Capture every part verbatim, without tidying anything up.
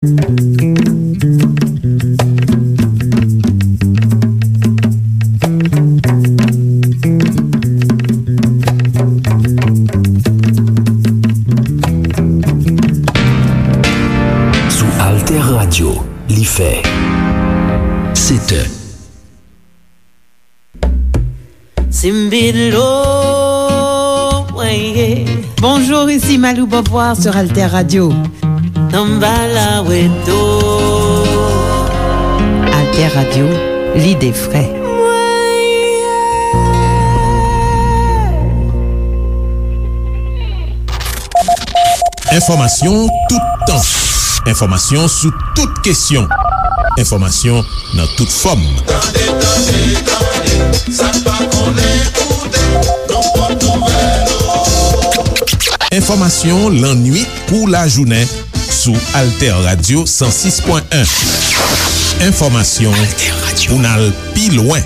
Sou Alter Radio, li fè sèt è. Simbilo, mwen ye. Bonjour, ici Malou Beauvoir sur Alter Radio. Tambala Weto. Alter Radio, l'idée frais. Mwen ye. Enfòmasyon toutan. Enfòmasyon sou tout kesyon. Enfòmasyon nan tout fòm. Tande, tande, tande, sa n pa konnen koute, nou pot nouvèl ou. Enfòmasyon lannwit kou lajounen sou Alter Radio san sis pwen en. Enfòmasyon pou n al pi lwen.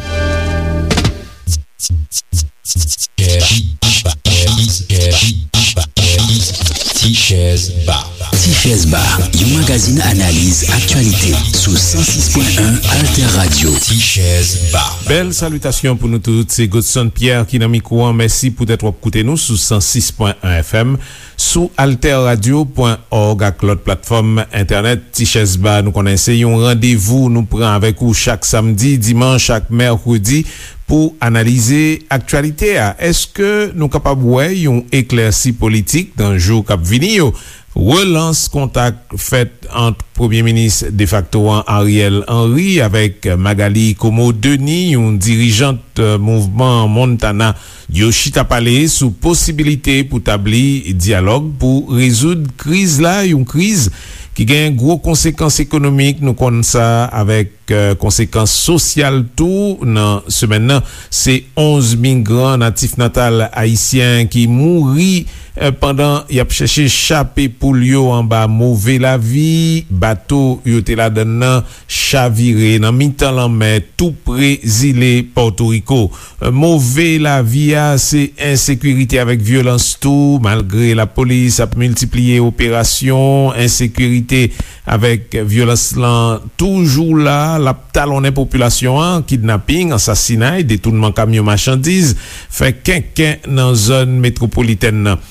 Tichèz Ba. Tichèz Ba, yon magazin analiz aktyalite sou san sis pwen en Alter Radio. Tichèz Ba. Bèl salitasyon pou nou tout. Se Godson Pierre ki nan mikwo an. Mèsi poutèt w ap koute nou sou san sis pwen en F M, sou alter radio pwen òg ak lòt platfòm entènèt. Tichèz Ba, nou konnen se yon randevou nou pran avèk ou chak samdi, dimanch ak mèkredi pou analize aktyalite a. Èske nou kapab wè yon eklèsi politik nan jou k ap vini yo? Relans kontak fèt ant Premye Minis defakto an Ariel Henry avèk Magalie Comeau Denis, yon dirijant, eh, mouvman Montana. Yo chita pale sou posibilite pou tabli dyalòg pou rezoud kriz la, yon kriz ki gen gwo konsekans ekonomik, nou konn sa, avèk, eh, konsekans sosyal tou. Nan semèn nan, se onz migran natif natal ayisyen ki mouri, eh, pandan y ap chèche chape poul yo anba move lavi. Bato yo te ladann nan chavire nan mitan lanmè, tou pre zile Pòtoriko. Move lavi a, se ensekirite avèk vyolans tou. Malgre lapolis ap miltipliye operasyon, ensekirite avèk vyolans lan toujou la. L ap talonnen popilasyon an. Kidnaping, ansasinay, detounman kamyon machandiz fè kenken nan zòn metwopolitèn nan.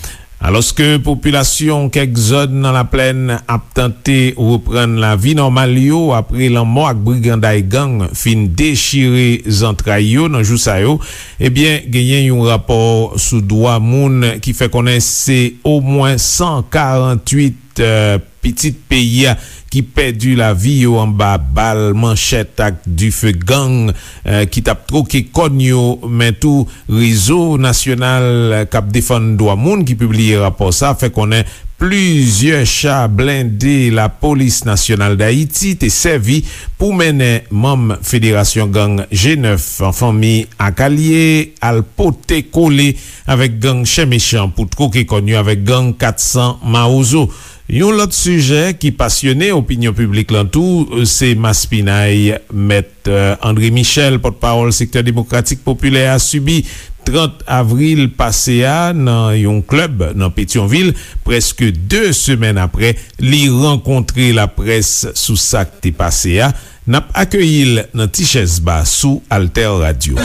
Alòske popilasyon kèk zòn nan Laplèn ap tante reprann lavi nòmal yo apre lanmò ak briganday gang fin dechire zantray yo nan jou sa yo, ebyen, genyen yon rapò sou dwa moun ki fè konnen se omwen san karannwit, eh, pitit peyi a ki pèdi lavi yo anba bal, manchèt ak dife gang, eh, ki t ap twoke kòn yo, men tou Rezo Nasyonal k ap Defann Dwa Moun ki pibliye rapò sa a fè konnen plizyè cha blende Lapolis Nasyonal Dayiti te sèvi pou mennen manm Federasyon Gang G nèf, Fanmi ak Alye, al pote kole avèk gang Chen Mechan pou twoke kòn yo avèk gang kat san Mawozo. Yon lòt sijè ki pasyone opinyon piblik lan tou, se maspinay Mèt, eh, André Michel, pòtpawòl Sektè Demokratik Popilè a, sibi trant avril pase a nan yon klèb nan Petyonvil, prèske de semèn apre li rankontre laprès sou sa k te pase a. N ap akeyi l nan Tichèz Ba sou Alter Radio.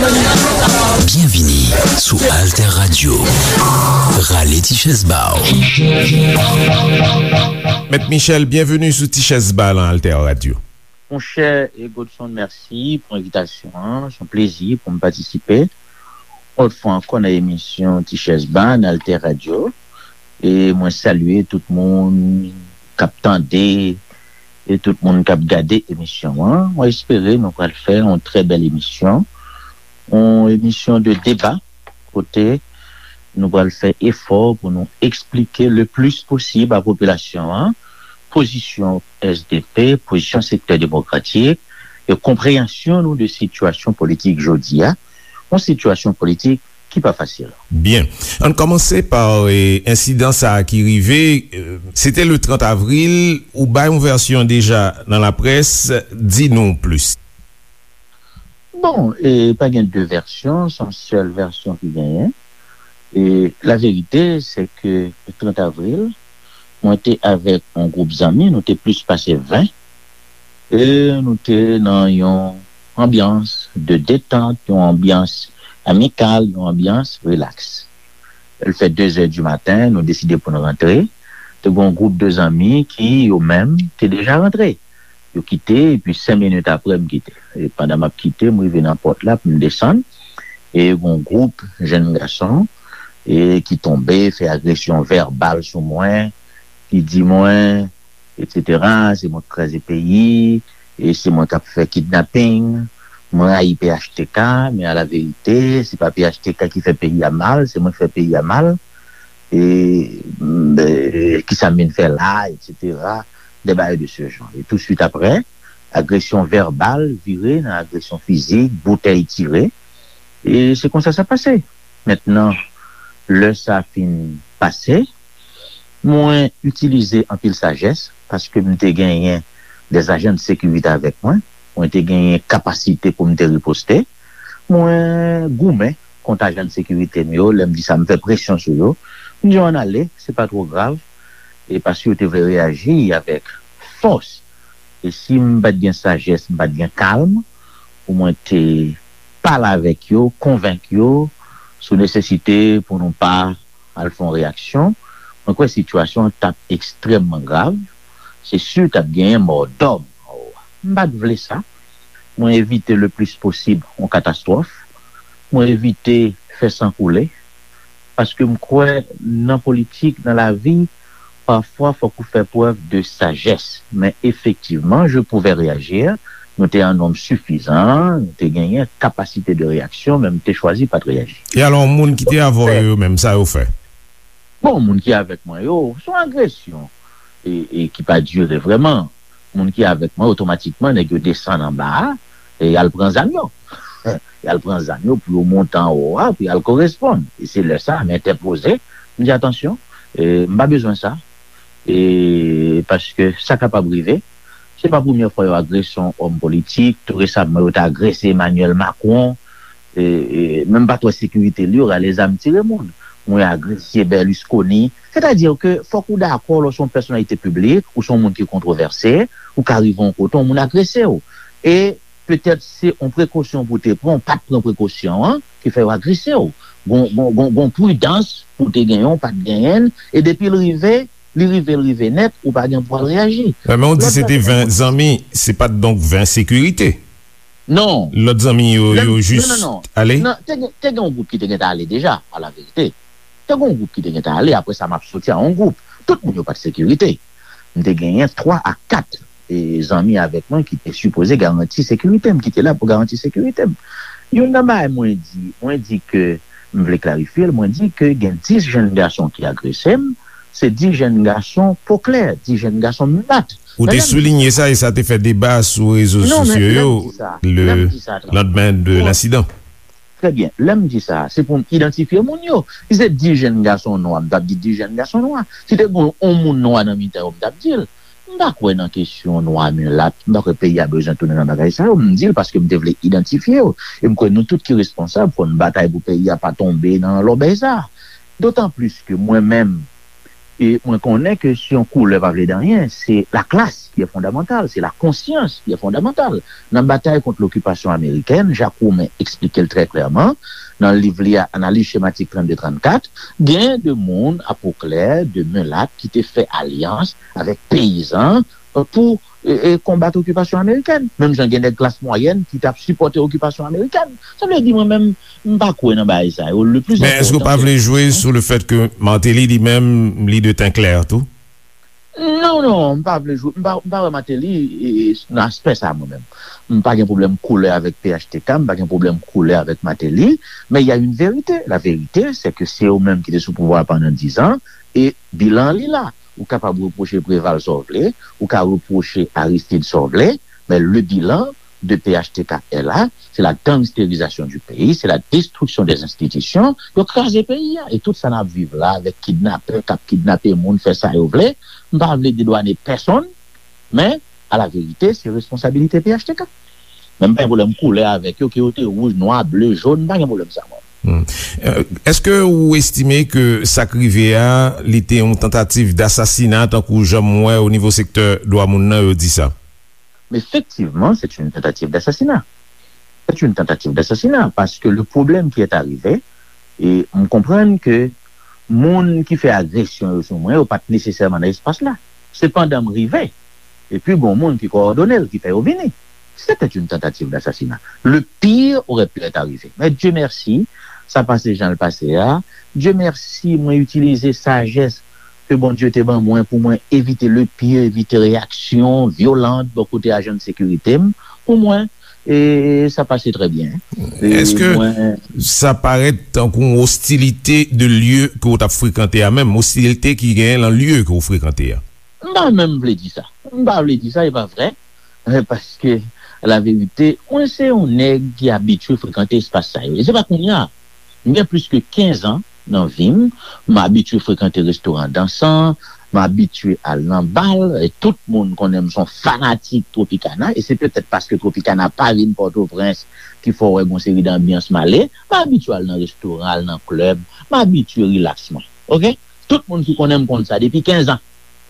Byenvini sou Alter Radio. Rale Tichèz Ba w. Mèt Michel, byenveni sou Tichèz Ba lan Alter Radio. Monchè Godson, mèsi pou envitasyon an. Se yon plezi pou m patisipe yon lòt fwa ankò nan emisyon Tichèz Ba nan Alter Radio. E mwen salye tout moun k ap tande e tout moun k ap gade emisyon an. Mwen espere nou pral fè yon trè bèl emisyon, yon emisyon de deba, kote nou pral fè efò pou nou eksplike le plis posib a popilasyon an pozisyon S D P, pozisyon Sektè Demokratik e konpreyansyon nou de sitiyasyon politik jodi a, yon sitiyasyon politik ki pa fasil. Byen. Ann kòmanse pa, e, ensidan sa a ki rive, e, se te le trant avril, ou bay yon vèsyon deja nan laprès, di nou plis. Bon, e, pa gen de vèsyon, se yon sèl vèsyon ki genyen. E, laverite, se ke le trant avril, Mwen te avèk yon gwoup zanmi, nou te plis pase ven, e nou te nan yon anbyans de detant, yon anbyans amikal, yon anbyans rilaks. L fè de zè di maten, nou deside pou n rantre. Te gen yon gwoup de zanmi ki, yo menm, te deja rantre. Yo kite, epi senk minit apre, m kite. E pandan m ap kite, m rive nan pòt la pou m desann. E gen yon gwoup jèn gason e ki tonbe, fè agresyon vèbal sou mwen, ki di mwen, etsetera, se mwen k kraze peyi, e se mwen k ap fè kidnaping. Mwen rayi P H T K, men a la verite, se pa P H T K ki fè peyi a mal, se mwen k fè peyi a mal. E, e kisa m vin fè la, etsetera. Des bagay de ce genre. E tou swit apre, agresyon vèbal vire nan agresyon fizik, boutèy tire. E se konsa sa pase. Mentnan, lè sa fin pase, mwen itilize anpil sajès, paske m te genyen des agents de sécurité avèk mwen, mwen te genyen kapasite pou m te riposte. Mwen goumen kont ajan de sekirite m yo, lè m di sa, m fè presyon sou yo. M di yo ann ale, se pa twò grav, e paske yo te vle reyaji avèk fòs. E si m pa t gen sajès, m pa t gen kalm pou mwen te pale avèk yo, konvenk yo sou nesesite pou nou pa al fè yon reyaksyon, mwen kwè sitiyasyon an t ap ekstrèmman grav. Se si t ap genyen mò dòm anwo a. M pa t vle sa. Mwen evite le plis posib yon katastwòf. Mwen evite fè san koule. Paske m kwè nan politik, nan lavi, pafwa fòk ou fè prèv de sajès. Men efektivman, je pouvais réagir. Nou te an nonb sifizan, nou te genyen kapasite de reyaksyon, men m te chwazi pa t reyaji. E alò, moun ki te avè w yo menm, sa yo fè? Bon, moun ki avèk mwen yo, se yon agresyon e, e ki pa dire vrèman. Moun ki avèk mwen, otomatikman, nèg yo desann anba a e y al pran zam yo. Y al pran zam yo pou yo monte anwo a, pou y al koresponn. E se lè sa a, m entèpoze, m di, "Atansyon, e, m pa bezwen sa." E paske sa kapab rive. Se pa premye fwa yo agrese yon òm politik. Tou resaman, yo te agrese Emmanuel Macron. E, e, menm pa twò sekirite li, yo rale zam tire moun. Mwen agrese Berlusconi. Sètadi ke fòk ou dakò lè w se yon pèsonalite piblik, ou se yon moun ki kontwovèse, ou ka rive yon kote, yon moun agrese w. E petèt se yon prekosyon pou w te pran, ou pa t pran prekosyon an, ki fè yo agrese w. Gon, gon, gon, gon pridans pou w te genyen, ou pa t genyen l, e depi l rive, li rive, l rive nèt, ou pa gen pou al reyaji. Men ou di se te ven zanmi, se pa t donk ven sekirite? Non. Lòt zanmi yo, yo jis ale? Non, te gen, te gen yon gwoup ki te gentan ale deja, a la verite. Te gen yon gwoup ki te gentan ale, apre sa m ap soti a yon gwoup. Tout moun yo pa t sekirite. M te genyen twa a kat, e, zanmi avèk mwen ki te sipoze garanti sekirite m, ki te la pou garanti sekirite m. Youn nan bagay mwen di, mwen di ke m vle klarifye l, mwen di ke gen dis jèn gason ki agrese m, se dis jèn gason po klè, dis jèn gason milat. Ou te soulinye sa e sa te fè deba sou rezo sosyo yo le landmen de lensidan. Trè byen. Lè m di sa, se pou m idantifye moun yo. Si se dis jèn gason nwa, m t ap di dis jèn gason nwa. Si te gen yon moun nwa nan mitan yo, m t ap di l. M pa kwè nan kesyon nwa milat. M pa kwè peyi a bezwen tounen nan bagay sa yo. M di l paske m te vle idantifye yo. E m kwè nou tout ki responsab, fò n batay pou peyi a pa tonbe nan lòbèy sa. Dotan plis ke mwen menm, e mwen konnen ke si yon koulè pa vle di anyen, se la classe qui est fondamentale, c'est la conscience qui est fondamentale. Nan batay kont lokipasyon amerikèn, Jacques Roumain eksplike l trè klèman nan liv li a, Analyse schématique trannde trannkat, gen de moun a po klè, de milat, ki te fè alyans avèk peyizan, euh, pou, e, e, konbat okipasyon amerikèn. Menm jan gen nèg klas mwayèn ki t ap sipòte okipasyon amerikèn. Sa vle di, mwen menm, m pa kwè nan bagay sa yo. Le plis enpòtan, se... Men èske w pa vle jwe sou le fèt ke Martelly li menm, li de ten klè tou? Non, non, m pa vle jwe, m pa, m pa wè Martelly, e, nan aspè sa, mwen menm. M pa gen pwoblèm koulè avèk P H T K, m pa gen pwoblèm koulè avèk Martelly, men il y a une vérité. La vérité, c'est que se yo menm ki te sou pouvwa a pandan diz an, e bilan an li la. Ou kapab repwoche Préval sa w vle, ou ka repwoche Aristide sa w vle, men le bilan de P H T K est là, c'est la gangsterisation du pays, c'est la destruction des institutions. Yo kraze peyi a. E tout sa n ap viv la avèk kidnapè k ap kidnape moun, fè sa yo vle. M pa vle dedwanen pèsonn, men a la verite, se responsabilite P H T K. Men m pa gen pwoblèm koulè avèk yo, ke yo te wouj, nwa, ble, jòn, m pa gen pwoblèm sa, mwen. Hmm. Euh, èske ou estime ke sa k rive a, li te yon tantativ dasasina, tankou jan m wè o nivo sektè dwa moun nan yo di sa? Effectivement, c'est une tentative d'assassinat. C'est une tentative d'assassinat parce que le problème qui est arrivé, e m konprann ke moun ki fè agresyon yo sou mwen, yo pa t nesesèman nan espas la. Sepandan, m rive, epi gon moun ki kowòdone l, ki fè yo vini. C'était une tentative d'assassinat. Le pire aurait pu être arrivé. Mais Dieu merci, sa pase jan l pase a. Dieu merci, mwen itilize sajès ke Bondye te ban mwen pou mwen evite le pire, evite reyaksyon vyolan bò kote ajan de sekirite m. Pou mwen, e sa pase trè byen. E Èske mwen, sa parèt tankou yon ostilite de lye ke w t ap frekante a menm, ostilite ki genyen nan lye ke w frekante a? M pa menm vle di sa. M pa vle di sa, e pa vrè. Eh, paske, la verite, mwen se yon nèg ki abitye frekante espas sa yo. E se pa kounye a. M gen plis ke kenz an nan vi m, m abitye frekante restoran dansan, m abitye al nan bal, e tout moun konnen m se yon fanatik Tropicana, e se petèt paske Tropicana pa vin Pòtoprens ki fè w wè gon seri de anbyans m ale, m abitye al nan restoran, al nan klèb, m abitye rilaks mwen. Oke? Tout moun ki konnen m konn sa depi kenz an.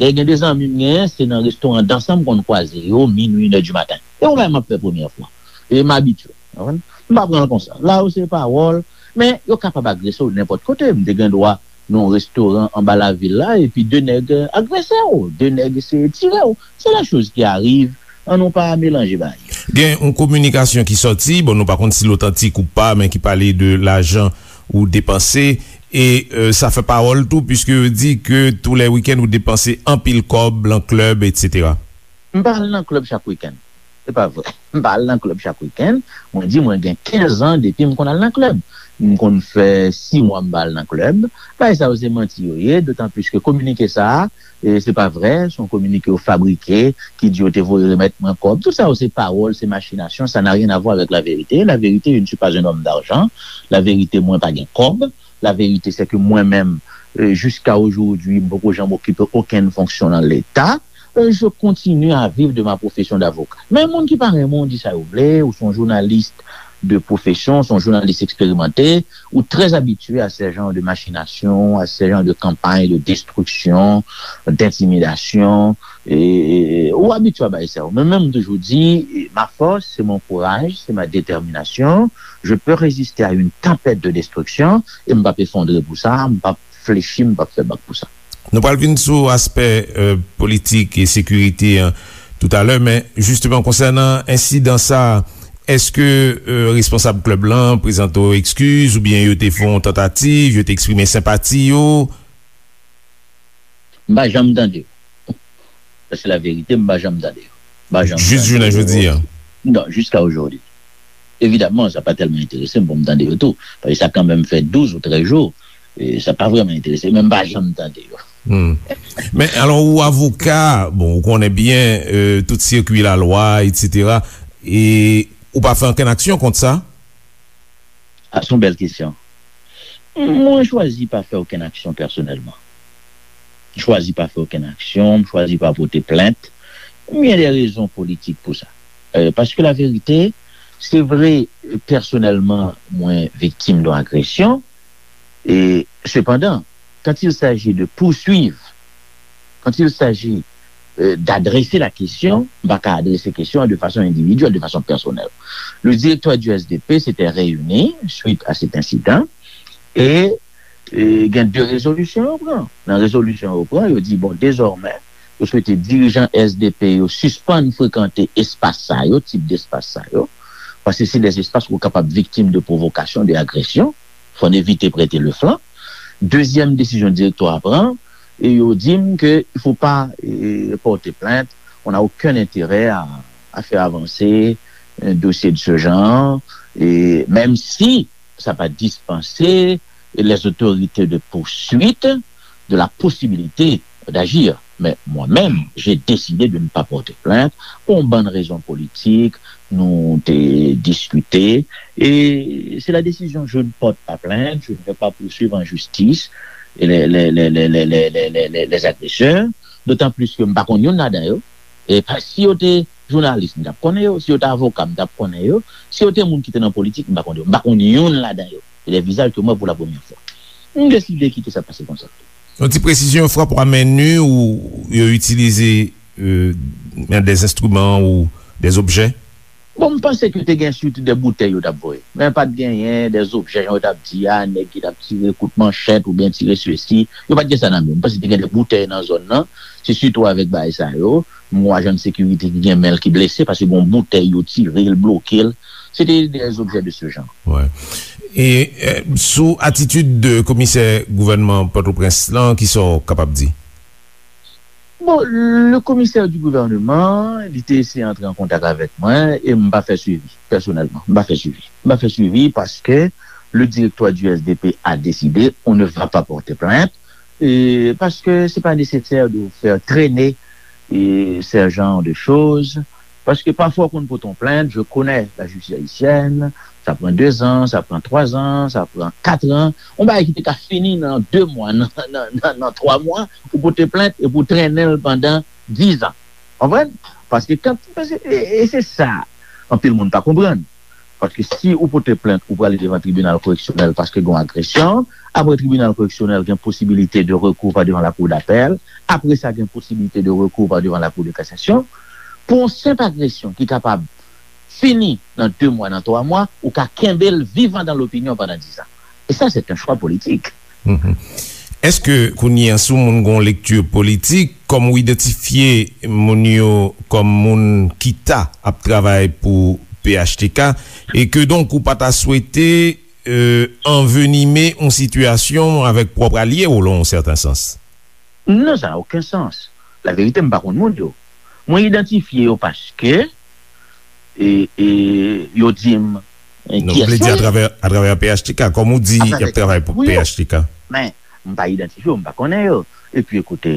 Dayè, gen de zanmi m genyen, se nan restoran dansan m konn kwaze yo, minwi, inè di maten. E yon bagay m ap fè premyè fwa. E m abitye. Konprann? M pa pran l konsa. La yo se pawòl, men yo kapab agrese w nenpòt kote. M te gen dwa nan yon restoran anba lavil la, epi de nèg, euh, agrese w, de nèg eseye tire w. C'est des choses qui arrivent. An nou pa melanje bagay yo. Gen yon kominikasyon ki sòti, bon, nou pa konn si l otantik ou pa, men ki pale de lajan ou depanse, e euh, sa fè pawòl tou, piske yo di ke tou lè wikenn ou depanse anpil kòb lan klèb, etsetera. M pa al nan klèb chak wikenn. Se pa vre. M pa al nan klèb chak wikenn. Mwen di mwen gen kenz an depi m konn al nan klèb. M konn fè sis mwa m pa al nan klèb. Bagay sa yo se manti yo ye, dotan plis ke kominike sa a, e se pa vre, se yon kominike yo fabrike, ki di yo te voye remèt mwen kòb. Tout sa yo se pawòl, se machinasyon, ça n'a rien à voir avec la vérité. La vérité, je ne suis pas un homme d'argent. La vérité, mwen pa gen kòb. La vérité, c'est que mwen menm, euh, jusqu'à aujourd'hui, m poko janm okipe okenn fonksyon nan Leta. Euh, je continue à vivre de ma profession d'avocat. Men moun ki pa renmen w di sa yo vle, ou se yon jounalis de profession, se yon jounalis eksperimente, ou très habitué à ce genre de machination, à ce genre de campagne de destruction, d'intimidation. E, e, ou abitye a bagay sa yo. Men, men m toujou di, ma force, c'est mon courage, c'est ma détermination. Je peux résister à une tempête de destruction, e m p ap efondre pou sa, m p ap flechi, m p ap fè bak pou sa. Nou pral vin sou aspè euh, politik e sekirite an toutalè, men jisteman konsènan ensidan sa, èske euh, responsab klèb lan prezante w ekskiz oubyen yo te fè yon tantativ, yo te eksprime senpati yo? M pa janm tande yo. Sa se la verite, m pa janm tande yo. M pa janm Jis tande jounen yo. Jodi a. Non, jiska ojodi. Evidaman, sa pa tèlman enterese m pou m tande yo tou. Paske sa kanmenm fè douz ou trèz jou. E sa pa vrèman enterese m, men m pa janm tande yo. Hmm. Men alò, ou avoka, bon, ou konnen byen euh, tout sirkwi lalwa, etsetera. E ou pa fè ankenn aksyon kont sa? A, se yon bèl kesyon. Mwen chwazi pa fè okenn aksyon pèsonèlman. M chwazi pa fè okenn aksyon, m chwazi pa pote plent. M gen de rezon politik pou sa. Euh, paske la verite, se vre, pèsonèlman, mwen viktim de yon agresyon. E, sepandan, quand il s'agit de poursuivre, quand il s'agit euh, d'adresser la question, m pa ka adrese kesyon an de fason endividyèl, de fason pèsonèl. Le directeur du S D P s'était réuni suite à cet incident e, e gen de rezolisyon yo pran. Nan rezolisyon yo pran, yo di, bon, dezòmè, yo swete dirijan S D P yo sispann frekante espas sa yo, tip despas sa yo, paske se de espas ou kapab viktim de pwovokasyon, de agresyon. Fò n evite prete le flanc. Dezyèm desizyon direktwa a pran, e yo di m ke il faut pas euh, porter plainte, on n'a aucun intérêt à, à faire avancer un dossier de ce genre, et même si ça va dispenser les autorités de poursuite de la possibilité d'agir. Mais moi-même, j'ai décidé de ne pas porter plainte pour une bonne raison politique. Nous avons discuté et c'est la décision. Je ne porte pas plainte, je ne vais pas poursuivre en justice les, les, les, les, les, les, les, les agresseurs. D'autant plus que je ne connais pas. Si yo te jounalis, m t ap konnen yo. Si yo te avoka, m t ap konnen yo. Si yo te moun ki te nan politik, m pa konnen yo. M pa konn youn ladan yo. E de vizaj ke m wè pou la premyè fwa. M deside kite sa pase konsa. Yon ti presizyon, frapwa men ni ou yo itilize euh, des instruments ou des objets? Bon, m panse ke te gen sitou de boutèy yo t ap voye. Men pa t genyen de objè, jan yo t ap di a, nèg ki t ap tire kout manchèt oubyen tire sesi. Yo pa t gen sa nan men yo. M panse te gen de boutèy nan zòn nan. Se sitou avèk bagay sa yo. M wè ajan de sekirite ki gen men l ki blese paske gen yon boutèy yo tire l, bloke l. Se te des objets de ce genre. Wi. E euh, sou atitid de komisè gouvènman Pòtoprens lan, kisa w kapab di? Bon, le commissaire du gouvernement, li te eseye antre an kontak avèk mwen e m pa fè swivi, pèsonèlman. M pa fè swivi. M pa fè swivi paske le directoire du S D P a décidé, on ne va pas porter plainte, e paske c'est pas nécessaire de faire traîner e ce genre de choses. Paske pafwa w konn pote yon plent, je connais la justice haïtienne, sa pran dezan, sa pran twazan, sa pran katran. Yon bagay ki te ka fini nan de mwa, nan, nan, nan, nan twa mwa, ou pote plent epi w trennen l pandan dizan. Konprann? Paske kan, paske, e, e se sa, anpil moun pa konprann. Paske si ou pote plent, ou prale devan tribinal koreksyonèl paske gen yon agresyon. Apre tribinal koreksyonèl gen posibilite de rekou pa devan la cour d'appel. Apre sa, gen posibilite de rekou pa devan la cour de cassation. Pou yon senp agresyon ki kapab fini nan de mwa, nan twa mwa, ou ka kenbe l vivan dans l'opinion pandan dizan. E sa, se yon chwa politik. Mhm. Èske kounye a, si yon moun gen yon lekti politik, kòm ou idantifye moun yo kòm moun ki ta ap travay pou P H T K, e ke donk ou pa ta swete euh, anvenime yon sitiyasyon avèk pwòp alye w, lan yon sèten sans? Non, sa n'a aucun sens. La vérité, m pa konn moun yo. Mwen idantifye yo paske e, e, yo di m e, Non, kiyès vle di yo ye. Atravè, atravè P H T K, kòm ou di, y ap travay pou P H T K. Men, m pa idantifye yo, m pa konnen yo. Epi, ekoute,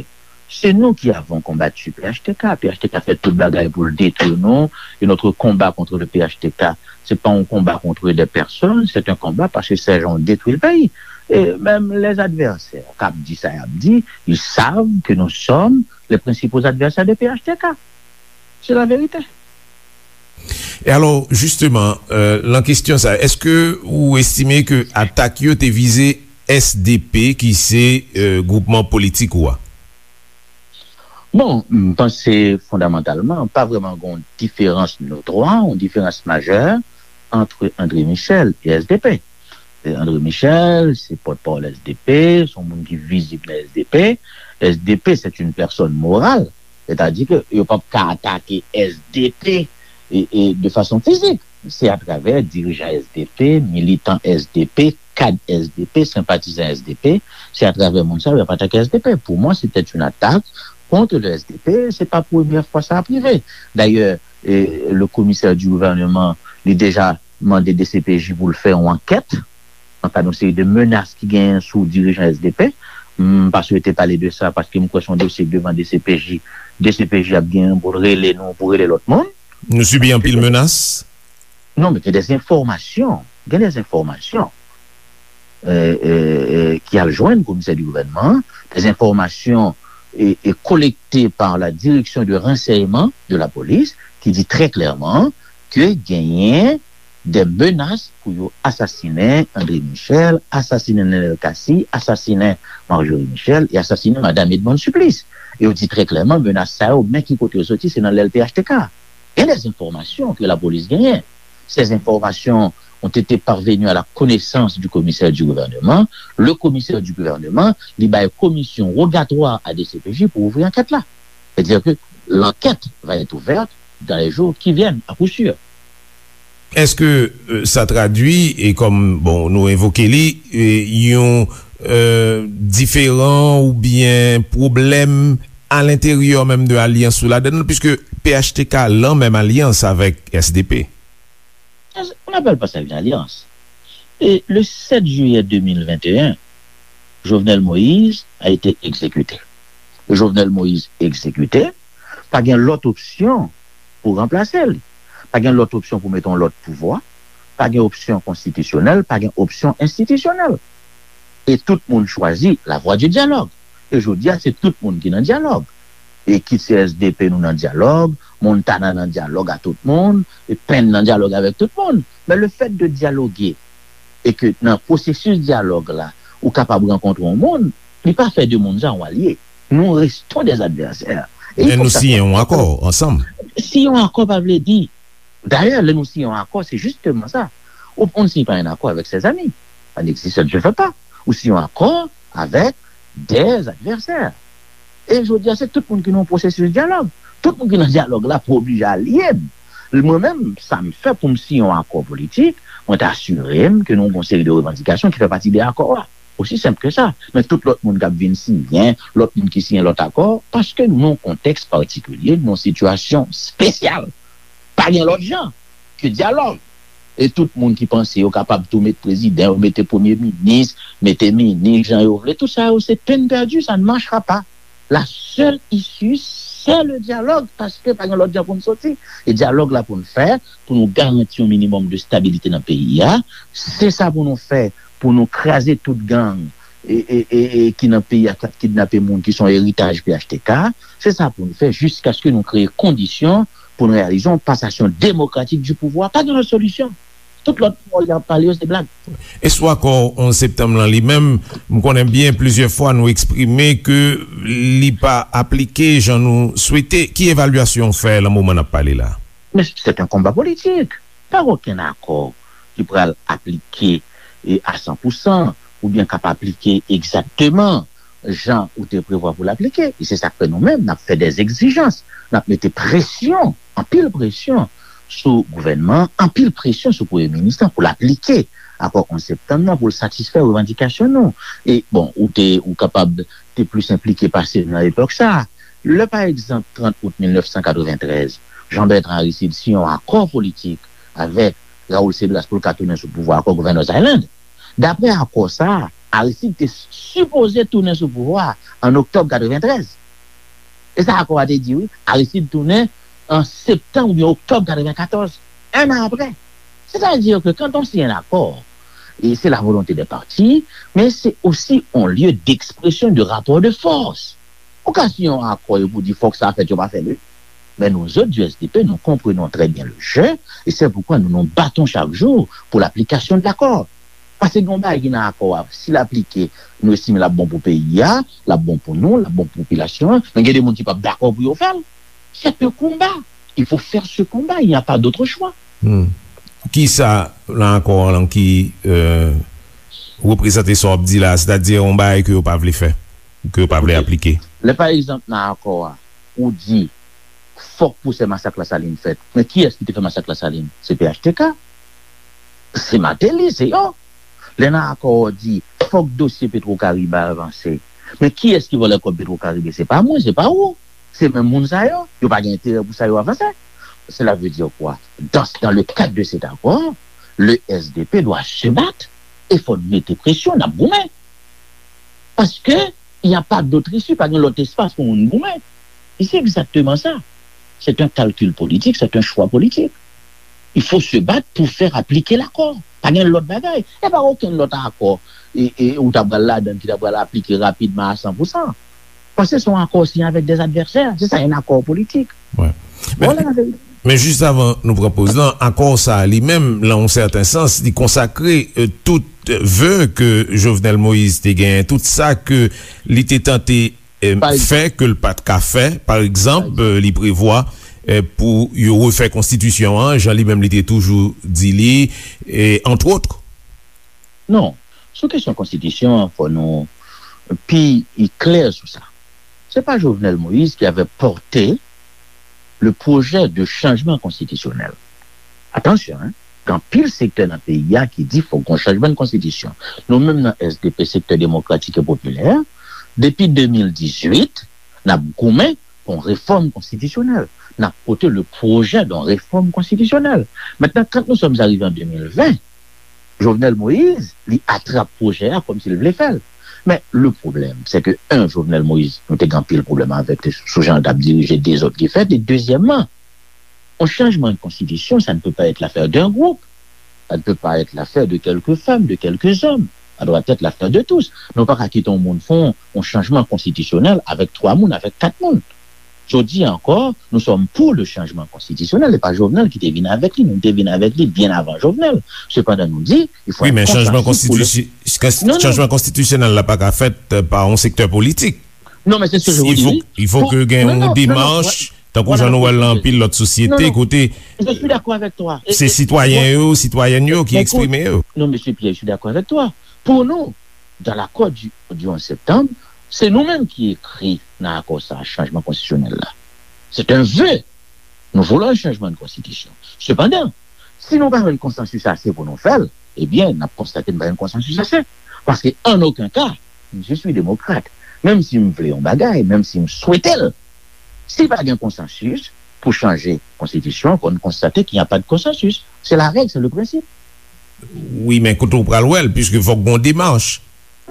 se nou ki avons combattu P H T K. P H T K fè tout bagay pou l detwi nou. Et notre combat contre le P H T K, c'est pas un combat contre des personnes, c'est un combat parce que ces gens ont détruit le pays. Et même les adversaires k ap di sa y ap di, ils savent que nous sommes les principaux adversaires de P H T K. C'est la vérité. E alò, jisteman, euh, lan kesyon sa, èske ou estime ke atak yo te vize S D P, ki se euh, gwoupman politik ou a? Bon, m panse fondamantalman, pa vrèman gen yon diferans notwa, yon diferans majè ant André Michel e S D P. E André Michel, se pòtpawòl S D P, se yon moun ki vizib nan S D P. S D P, c'est une personne morale. Sètadi ke yo p ap ka atake S D P e, e, de fason fizik. Se atravè dirijan S D P, militan S D P, kad S D P, senpatizan S D P, se atravè moun sa yo y ap atake S D P. Pour moi, c'était une attaque contre le S D P. Se pa premyè fwa sa ap rive. Dayè, e, le commissaire du gouvernement, li deja mande D C P J pou l fè yon ankèt nan kad yon seri de menas ki genyen sou dirijan S D P. M pa swete pale de sa paske m kwè se yon dosye k devan D C P J. D C P J ap genyen pou l rele nou, pou rele lòt moun. Nou sibi anpil menas? Non, men gen de enfòmasyon. Gen de enfòmasyon euh, euh, euh, ki al jwenn komisè di gouvènman, des informations et, et collectées par la direction de renseignement de la police, ki di trè klèman ke genyen de menas pou yo asasinen André Michel, asasinen Nenel Cassy, asasinen Marjorie Michel e asasinen madanm Edmonde Supplice. E yo di trè klèman, menas sa yo, men ki kote yo soti, se nan lèl P H T K. Gen de enfòmasyon ke lapolis genyen. Ces informations ont été parvenues à la connaissance du commissaire du gouvernement. Le commissaire du gouvernement, li bay komisyon rogatwa a D C P J pou ouvri ankèt la. C'est-à-dire que l'enquête va être ouverte dans les jours qui viennent, à coup sûr. Èske euh, sa tradui, e kòm bon, nou evoke li, e, yon euh, diferan oubyen pwoblèm alenteryè menm de alyans ou ladann, puisque P H T K lan menm alyans avèk S D P? On n'appelle pas ça une alliance. Et le sept juillet deux mille vingt et un, Jovenel Moïse a été exécuté. Jovenel Moïse exécuté, pa gen lòt opsyon pou ranplase li. Pa gen lòt opsyon pou mete yon lòt pouvwa. Pa gen opsyon konstitisyonèl, pa gen opsyon enstitisyonèl. E tout moun chwazi la voie du dialogue. E jodi a, se tout moun ki nan dyalòg. E kit se S D P nou nan dyalòg, Montana nan dyalòg a tout moun, e Penn nan dyalòg avèk tout moun. Men le fait de dialoguer e ke nan pwosesis dyalòg la, ou kapab rankontre yon moun, li pa fè de moun sa yon alye. Nous restons des adversaires. E Men fòk nou sa siyen yon akò ansanm. Siyen yon akò pa vle di. Dayè, lè nou siyen yon akò, se jisteman sa. Ou, on ne signe pas un accord avec ses amis. Ça n'existe, ça ne se fait pas. Ou siyen yon akò avèk des adversaires. E jodi a, se tout moun ki nan yon pwosesis dyalòg. Tout moun ki nan dyalòg la pou oblije alye m. Mwen menm, sa m fè pou m siyen yon akò politik, mwen ta asire m ke nou gen yon seri de revandikasyon ki fè pati de akò a. Osi senp ke sa. Men tout lòt moun k ap vin siyen, lòt moun ki siyen lòt akò, paske nou nan yon kontèks patikilye, nou nan yon sitiyasyon espesyal. Pa gen lòt jan ke dyalòg. E tout moun ki panse yo kapab tou met prezidan, yo mete premye minis, mete minis jan yo vle, tout sa yo se peine perdue, ça ne marchera pas. La seule issue, c'est le dialogue, paske pa gen lòt jan pou n soti. E dyalòg la pou n fè, pou nou garanti yon minimòm de stabilite nan peyi a, se sa pou nou fè, pou nou kraze tout gang e, e, e, e ki nan peyi a k ap kidnape moun, ki se yon eritaj P H T K, se sa pou nou fè jiskaske nou kreye kondisyon pou n reyalize yon pasasyon demokratik du pouvwa. Pa gen lòt solisyon. Tout lòt pawòl y ap pale yo, se blag. E sou akò onz septanm lan li menm, m konnen byen plizyè fwa nou eksprime ke li pa aplike jan nou swete. Ki evalyasyon w fè lan moman n ap pale la? Men se yon konba politik. Pa gen okenn akò ki pral aplike e a san pou san oubyen k ap aplike egzakteman jan ou te prevwa pou l aplike. E se sa k fè nou menm, n ap fè dè egzijans, n ap mete presyon, anpil presyon sou gouvènman, anpil presyon sou premye minis lan pou l aplike akò onz septanm nan, pou l satisfè revandikasyon nou. E, bon, ou te, ou kapab te plis enplike pase m nan epòk sa a. Lè, pa egzanp, trant out mil nèf san katreventrèz, Jean Bertrand Aristide siyen yon akò politik avèk Raoul Cédras pou l ka tounen sou pouvwa, akò Governor's Island. Daprè akò sa a, Aristide te sipoze tounen sou pouvwa a an oktòb katreventrèz. E sa akò a te di, wi. Aristide tounen an septanm oubyen oktòb katrevenkatòz, un an aprè. C'est-à-dire que quand on signe un accord, et c'est la volonté des parties, mais c'est aussi un lieu d'expression de rapport de force. Ou ka siyen yon akò epi w di fòk sa fèt, yo pa fè l, wi. Men nou zòt du S D P, nous comprenons très bien le jeu, et c'est pourquoi nous nous battons chaque jour pour l'application de l'accord. Paske gen yon bagay ki nan akò a, si l aplike, nou estime l ap bon pou peyi a, l ap bon pou nou, l ap bon pou popilasyon an, men gen de moun ki p ap dakò pou yo fè l. C'est un combat. Il faut faire ce combat, il n'y a pas d'autre choix. Hmm. Kisa nan akò an lan ki, euh, reprezante sa w ap di la, sètadi yon bagay ke yo pa vle fè, ke yo pa vle aplike? Lè, pa egzanp, nan akò a, ou di, fòk pwosè masak Lasalin fèt. Men kiyès ki te fè masak Lasalin? Se P H T K. Se Martelly, se yo. Lè nan akò a w di, fòk dosye Petro Caribe a avanse. Men kiyès ki vòlè kòb Petro Caribe? Se pa mwen, se pa ou. Se menm moun sa yo. Yo pa gen enterè pou sa yo avanse. Cela veut dire quoi? Dans, dans le cadre de cet accord, le S D P doit se battre. E fò n mete presyon, n ap goumen. Paske, il n'y a pas d'autre issue, pa gen lòt espas pou moun goumen. E se egzakteman sa. C'est un calcul politique, c'est un choix politique. Il faut se battre pour faire appliquer l'accord. Pa gen lòt bagay. E pa okenn lòt akò, e, e, ou ta pral ladan ki ta pral aplike rapidman a san pou san. Paske se yon akò siyen avèk des adversaires. Se sa, un accord politique. Wi. Voilà la vérité. Men jis avan nou pran poz lan, akò sa a li menm, nan yon sèten sans, li konsakre, euh, tout ve ke Jovenel Moïse te genyen, tout sa ke li te tante, euh, fè ke l pa t ka fè. Pa egzanp, euh, li prevwa, euh, pou yo refè konstitisyon an, jan li menm li te toujou di li, e, entre autres. Non. Sou kesyon konstitisyon an, fò nou pi klè sou sa. C'est pas Jovenel Moïse qui avait porté le projet de changement constitutionnel. Atansyon, hein, gen anpil sektè nan peyi a ki di fòk gon chanjman de konstitisyon. Nou menm nan S D P, Sektè Demokratik e Popilè, depi de mil dizuit, n ap goumen pou yon refòm konstitisyonèl. N ap pote le projet d'une réforme constitutionnelle. Maintenant, quand nous sommes arrivés en deux mille vingt, Jovenel Moïse, li atrap pwojè a kòmsi l vle fè l. Men, le pwoblèm, se ke, un, Jovenel Moïse, nou te gen anpil pwoblèm avèk li sou jan l t ap dirije dezòd ki fèt, e dezyèmman, yon chanjman de konstitisyon, ça ne peut pas être l'affaire d'un groupe, ça ne peut pas être l'affaire de quelques femmes, de quelques hommes, ça doit être l'affaire de tous. Nou pa ka kite yon moun fè yon, yon chanjman konstitisyonèl avèk twa moun, avèk kat moun. Jodi a ankò, nous sommes pour le changement constitutionnel. E pa Jovenel ki te vin avèk li, nou te vin avèk li byen avan Jovenel. Sepandan, nou di, il faut Wi, être men chanjman konsansis pou le konstitisyon, Non, non. chanjman konstitisyonèl la pa ka fèt euh, pa yon sektè politik. Non, mais c'est ce que je vous Il dis. faut, il faut que gen yon demach, tankou jan nou wè l nan anpil lòt sosyete, kote Je suis d'accord avec toi. Et- se et- sitwayen yo, sitwayèn yo ki eksprime yo. Non, monsieur Pierre, je suis d'accord avec toi. Pour nous, dans l'accord du, du onze septembre, c'est nous-mêmes qui écrit dans l'accord ça, changement constitutionnel là. C'est un vœu. Nous voulons un changement de constitution. Cependant, si nou pa jwenn konsansis ase pou nou fè l, ebyen, n ap konstate n pa jwenn konsansis ase. Paske, an okenn ka, je suis démocrate. Menm si m vle yon bagay, menm si m swete l, si pa gen konsansis pou chanje konstitisyon, kon nou konstate qu'il n'y a pas de consensus. C'est la règle, c'est le principe. Wi, men kote w pral wè l, piske fòk gon demach.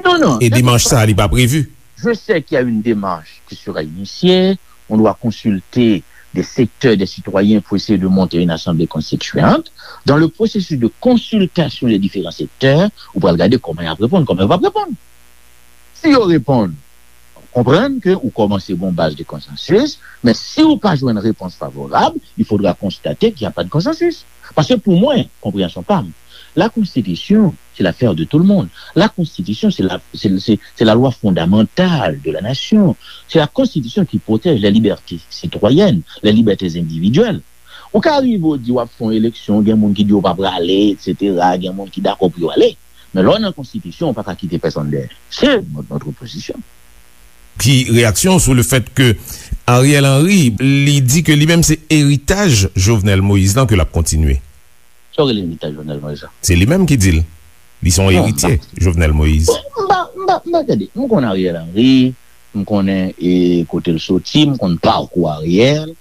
Non, non. E demach sa, li pa previ. Je sais qu'il y a une démarche qui sera initiée. On doit consulter des secteurs, des citoyens pour essayer de monter une assemblée constituante. Dans le processus de consultation des différents secteurs, ou pral gade kòman y ap reponn, kòman y ap reponn. Si yo reponn, konprann ke ou kòmanse gon baz de konsansis, men si ou pa jwenn repons favorab, il faudra constater qu'il n'y a pas de consensus. Paske pou mwen, konpreyansyon pa m, la konstitisyon, c'est l'affaire de tout le monde. La constitution, c'est la, c'est, c'est, c'est la loi fondamentale de la nation. C'est la constitution qui protège les libertés citoyennes, les libertés individuelles. Ou ka rive ou di w ap fè yon eleksyon, gen moun ki di yo pa prale, et cetera, gen moun ki dakò pou yo ale. Men lè w nan konstitisyon, ou pa ka kite pèsonn dèyè. C'est notre, notre position. Ki reyaksyon sou le fèt ke Ariel Henry, li di ke li menm se eritaj Jovenel Moïse lan ke l ap kontinye? Sa w rele eritaj Jovenel Moïse lan? Se li menm ki di l. Li se yon Non, eritye Jovenel Moïse. Bon, m pa, m pa, m pa gade. M konn Ariel Henry, m konnen e, kote l soti, m konn pakou Ariel.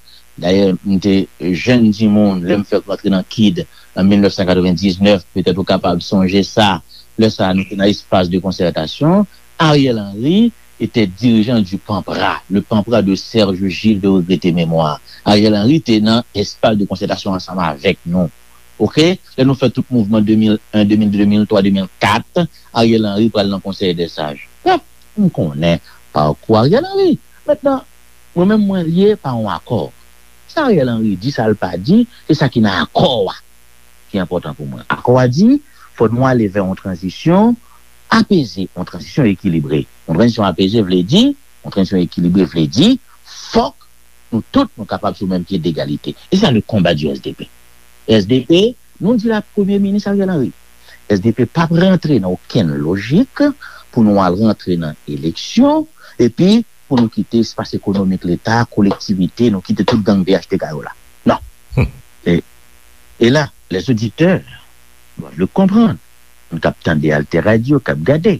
Dayè, m te jèn timoun, lè m fèk rantre nan kid an mil nèf san katrevendiznèf, petèt ou kapab sonje sa. Lè sa a, nou te nan espas de konsètasyon. Ariel Henry était dirigeant du PANPRA, le PANPRA de Serge Gilles de regretté mémoire. Ariel Henry te nan espas de konsètasyon ansanm avèk nou. Oke? Lè nou fè tout mouvman de mil en, de mil de, de mil twa, de mil kat, Ariel Henry pral nan Konsèy dè Saj. Brèf, m konnen pakou Ariel Henry. Mentnan, mwen menm mwen lye pa yon akò. Sa Ariel Henry di, sa l pa di, se sa ki nan akò a ki enpòtan pou mwen. Akò a di, fò nou ale vè yon tranzisyon apeze, yon tranzisyon ekilibre. Yon tranzisyon apeze vle di, yon tranzisyon ekilibre vle di, fòk nou tout nou kapab sou menm pye degalite. E sa le konba di S D P. S D P, nou di la Premye Minis Ariel Henry. S D P p ap rantre nan okenn lojik pou nou al rantre nan eleksyon, epi pou nou kite espas ekonomik Leta, kolektivite, nou kite tout gang P H T K yo la. Non. E, e la, les auditeurs doivent le comprendre. Moun k ap tande Alter Radio, k ap gade.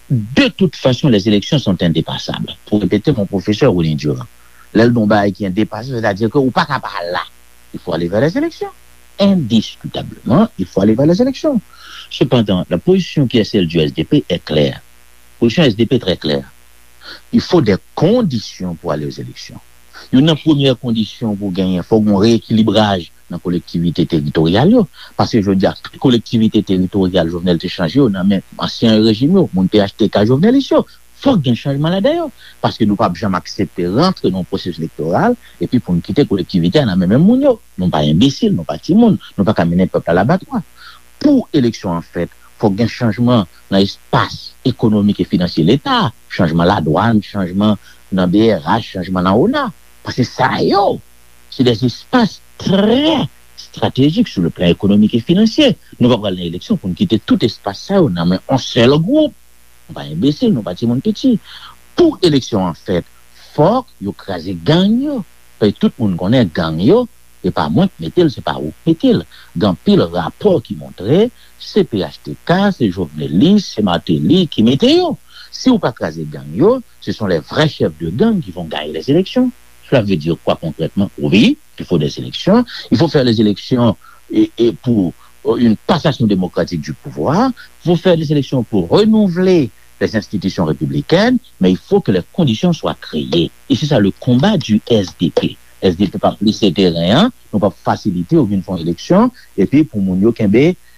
De toute façon, les élections sont indépassables. Pour répéter mon professeur Rony Durand, lè l di yon bagay ki endepasab, c'est-à-dire que ou pa ka pa la. Il faut aller vers les élections. Indiscutablement, il faut aller vers les élections. Cependant, la position qui est celle du S D P est claire. Position S D P très claire. Il faut des conditions pour aller aux élections. Youn nan premyè kondisyon pou genyen, fòk gon reyekilibraj nan kolektivite teritoryal yo. Paske jodi a, tout kolektivite teritoryal Jovenel te chanje yo nan men ansyen rejim yo, moun P H T K Jovenelis yo. Fòk gen chanjman ladan yo. Paske nou p ap janm aksepte rantre nan yon pwosesis elektoral epi pou n kite kolektivite a nan men menm moun yo. Nou pa enbesil, nou pa timoun, nou pa ka mennen pèp la labatwa. Pou eleksyon an fèt, fòk gen chanjman nan espas ekonomik e finansye Leta, chanjman ladwàn, chanjman nan B R H, chanjman nan ona. Paske sa yo, se de espas trè estratejik sou le plan ekonomik e finansye. Nou pa pral nan eleksyon pou n kite tout espas sa yo nan men yon sèl gwoup. Nou pa enbesil, nou pa timoun piti. Pou eleksyon an fèt, fòk yo kraze gang yo. Paske tout moun konnen gang yo, e pa mwen k mete l, se pa ou k mete l. Gen anpil rapò ki montre se P H T K, se Jovenelis, se Martelly ki mete yo. Si ou pa kraze gang yo, ce sont les vrais chefs de gang qui vont gagner les élections. Cela veut dire quoi concrètement? Oui, il faut des élections. Il faut faire les élections et, et pour euh, une passation démocratique du pouvoir. Il faut faire des élections pour renouveler les institutions républicaines, mais il faut que les conditions soient créées. Et c'est ça le combat du S D P. S D P p ap lese teren an, nou p ap fasilite ou vin fè yon eleksyon, epi pou moun yo kenbe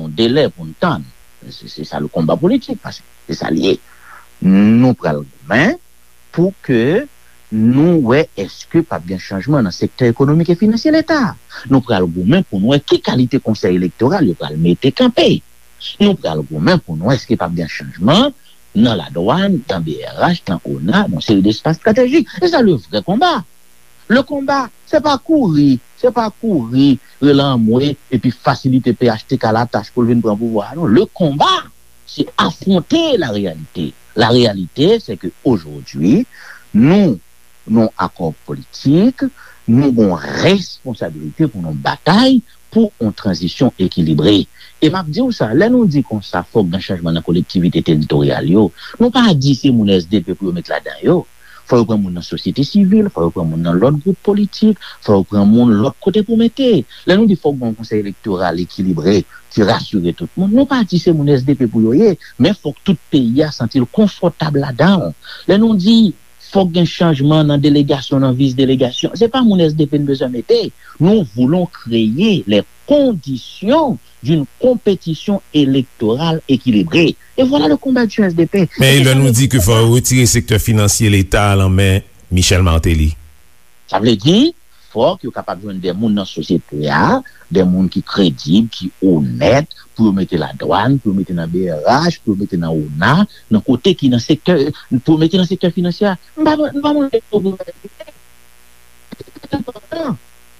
nou de lè pou n tann. Se, se sa le konba politik, paske se sa l ye. Nou pral goumen pou ke nou wè èske p ap gen chanjman nan sektè ekonomik e finansye Leta. Nou pral goumen pou n wè ki kalite konsèy elektoral yo pral mete kanpe. Nou pral goumen pou n wè èske p ap gen chanjman nan ladwàn, nan B R H, nan ona, nan seri de espas estratejik. E sa le vrè konba. Le konba, se pa kouri, se pa kouri, rele anmwe, epi fasilite P H T K latach pou l vin pran pouvwa a, non. Le konba, se afwonte la reyalite. La reyalite, se ke ojodwi, nou, nou akò politik, nou gon responsabilite pou nou batay pou yon tranzisyon ekilibre. E m ap di w sa, lè nou di konsa, fòk gen chanjman nan kolektivite teritoryal yo, nou pa di se moun S D P pou yo met ladan yo. Fò yo pran moun nan sosyete sivil, fò yo pran moun nan lòt gwoup politik, fò yo pran moun lòt kote pou mete. Lè nou di fòk gen yon konsèy elektoral ekilibre, ki rasire tout moun, nou pa di se moun S D P pou yo ye, men fòk tout peyi a santi l konfòtab ladan l. Lè nou di fòk gen chanjman nan delegasyon, nan vis delegasyon, se pa moun S D P n bezwen mete. Nous voulons créer les conditions d'une compétition électorale équilibrée. Et voilà le combat du S D P. Men lè nou di ke fò yo retire sektè finansye Leta a nan men Michel Martelly. Sa vle di, fòk yo kapab jwenn de moun nan sosyete a, de moun ki kredib, ki onèt, pou yo mete ladwàn, pou yo mete nan B R H, pou yo mete nan ona, nan kote ki nan sektè, pou yo mete nan sektè finansye a. M pa, m pa mande yo pou yo mete.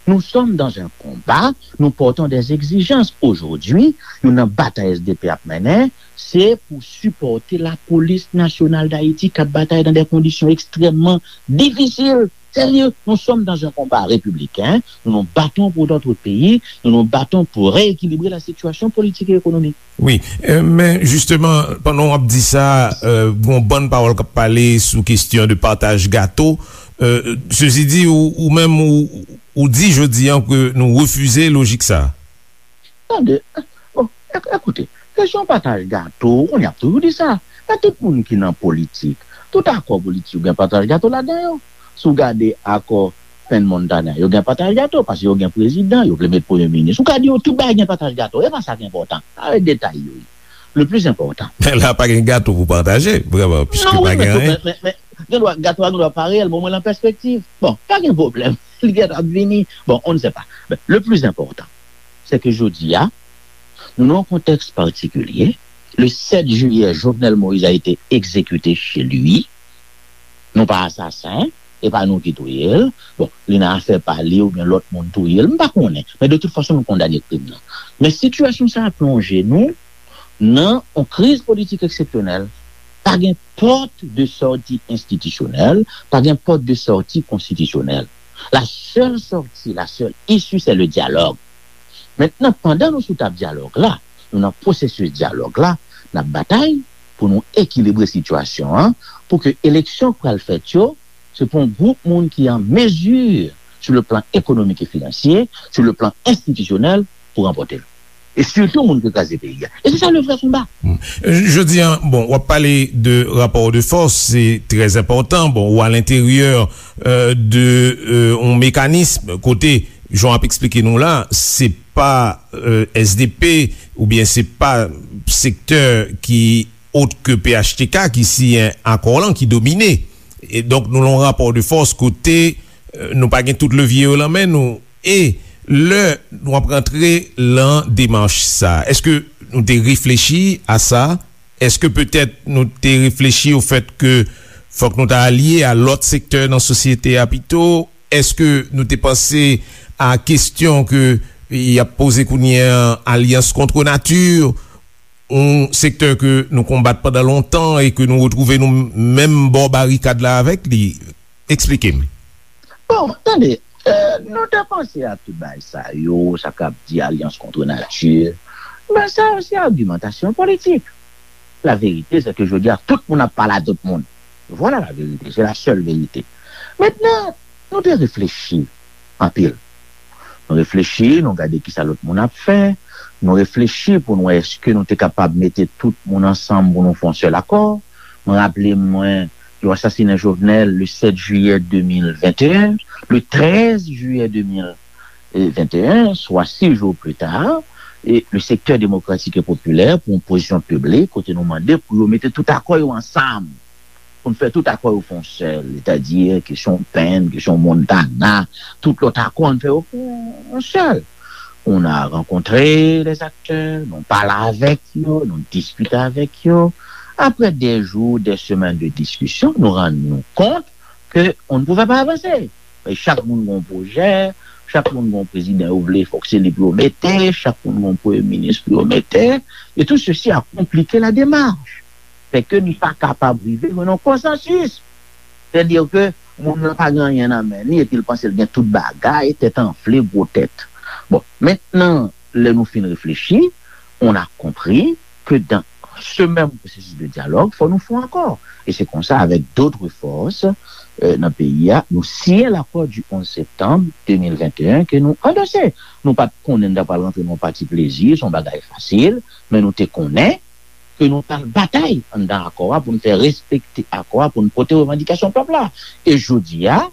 Nous sommes dans un combat, nous portons des exigences. Aujourd'hui, youn nan batay S D P ap mennen, se pou sipòte Lapolis Nasyonal d Ayiti k ap batay nan de kondisyon ekstrèmman difisil. sérieux. Nous sommes dans un combat républicain. Nous nous battons pour notre pays. Nous nous battons pour rééquilibrer la situation politique et économique. Wi, men jisteman, pandan w ap di sa, gen yon bann pawòl k ap pale sou kesyon de pataj gato. Sezidi, ou menm, ou di jodi a ke nou refize lojik sa a. Tande, bon, ekoute, kesyon pataj gato, ou konnen y ap toujou di sa. Men tout moun ki nan politik, tout akò politik yo gen pataj gato ladan yo. Si w gade akò Penn Montana, yo gen pataj gato, paske yo gen prezidan, yo vle met premye minis. Ou ka di yo tout bagay gen pataj gato, e pa sa ki enpòtan. Sa se detay yo ye. Le plus important. Men la pa gen gato pou pataje, vrèman, piske pa gen anyen. Men, men, men, gen dwa, gato a gen dwa pa reyèl, men omwen l an pèspektiv. Bon, pa gen pwoblèm. Li gentan ap vini. Bon, on ne sait pas. Men, le plus important, c'est que jodi a, nou nan yon kontèks patikilye. Le sept juillet, Jovenel Moïse a été exécuté chez lui. Nou pa asasen, e pa nou ki touye l. Bon, li nan afè pa li oubyen lòt moun touye l, m pa konnen. Men de tout fason, nou kondane krim nan. Men sitiyasyon sa a plonje nou nan yon kriz politik eksepsyonèl. Pa gen pòt de sòti enstitisyonèl, pa gen pòt de sòti konstitisyonèl. La seule sortie, la seule issue, c'est le dialogue. Mentnan, pandan nou sou tab dyalòg la, nou nan pwosesis dyalòg la, n ap batay pou nou ekilibre sitiyasyon an, pou ke eleksyon k pral fèt yo, se pou yon gwoup moun ki an mezi, sou le plan ekonomik e finansye, sou le plan enstitisyonèl, pou ranpòte l. E sitou moun ki kraze peyi a. E se sa le vrè konba. Jodi a, bon, w ap pale de rapò de fòs, se trè enpòtan. Bon, ou alenteryè de yon mekanis kote, jan w ap eksplike nou la, se pa S D P oubyen se pa sektè ki ot ke P H T K ki siyen akò lan ki domine. E donk, nou lan yon rapò de fòs kote nou pa gen tout levye yo lan men nou. E lè nou ap rantre lan demach sa, èske nou te reflechi a sa? Èske petèt nou te reflechi o fèt ke fòk nou ta alye a lòt sektè nan sosyete a pito? Èske nou te panse a kesyon ke y ap poze kounye a, alyans kont nati, yon sektè ke nou konbat pandan lontan e ke nou retwouve nou menm bò barikad la avèk li? Eksplike m. Bon, tande, nou te panse a tout bagay sa yo, sa k ap di alyans kont nati, men sa yo se agimantasyon politik. La vérité, c'est que jodi a, tout moun ap pale a tout moun. Voilà la vérité, c'est la seule vérité. Mentnan, nou te reflechi anpil. Nou reflechi, nou gade kisa lòt moun ap fè, nou reflechi pou n wè èske nou te kapab mete tout moun ansanm pou nou fè yon sèl akò. Mwen raple mwen, yo asasinen Jovenel le sept juillet deux mille vingt et un, le treize juillet deux mille vingt et un, swa sis jou pli ta, e le sektè demokratik e popilè pran yon pozisyon piblik kote nou mande pou yo mete tout akò yo ansanm, pou n fè tout akò yo fè yon sèl, sètadi kesyon Penn, kesyon Montana, tout lòt akò, n fè yo fè yon sèl. On a rencontré les acteurs, nou pale avèk yo, nou diskite avèk yo. Après des jours, des semaines de discussion, nou rann nou kont ke on ne pouvait pas avancer. E chak moun gen yon pwojè, chak moun gen yon prezidan yo vle, fòk se li pou yo mete, chak moun gen yon premye minis pou yo mete. Et tout ceci a compliqué la démarche. Fè ke n pa kapab rive jwenn yon konsansis. Sètadi ke moun nan pa gen anyen nan men li, epi l panse l gen tout bagay, tèt anfle, gwo tèt. Bon, mentnan, lè nou fin reflechi, on a compris que dans ce même processus de dialogue, fò nou fè yon akò. E se konsa, avec d'autres forces, euh, nan peyi a, nou siyen l'accord du onze septembre deux mille vingt et un ke nou andose. Nou pa t konnen n ta pral rantre nan yon pati plezi, se yon bagay fasil, men nou te konnen ke nou pral batay anndan akò a pou n fè respekte akò a, pou n pote revandikasyon pèp la. E jodi a,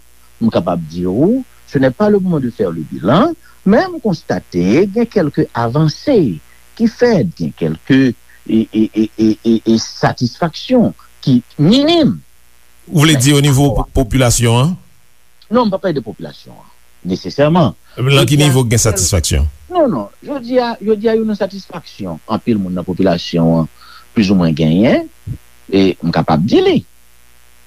m kapab di w, ce n'est pas le moment de faire le bilan, men m konstate gen kèlke avanse ki fèt, gen kèlke e, e, e, e, e, e satisfaksyon ki minim. Ou vle di o nivo popilasyon an? Non, m pa pale de popilasyon an, nesesèman. Lan ki nivo gen satisfaksyon? Non, non. Jodi a, jodi a, yo nan satisfaksyon. Anpil moun nan popilasyon an, plizoumwen genyen, e m kapab di li.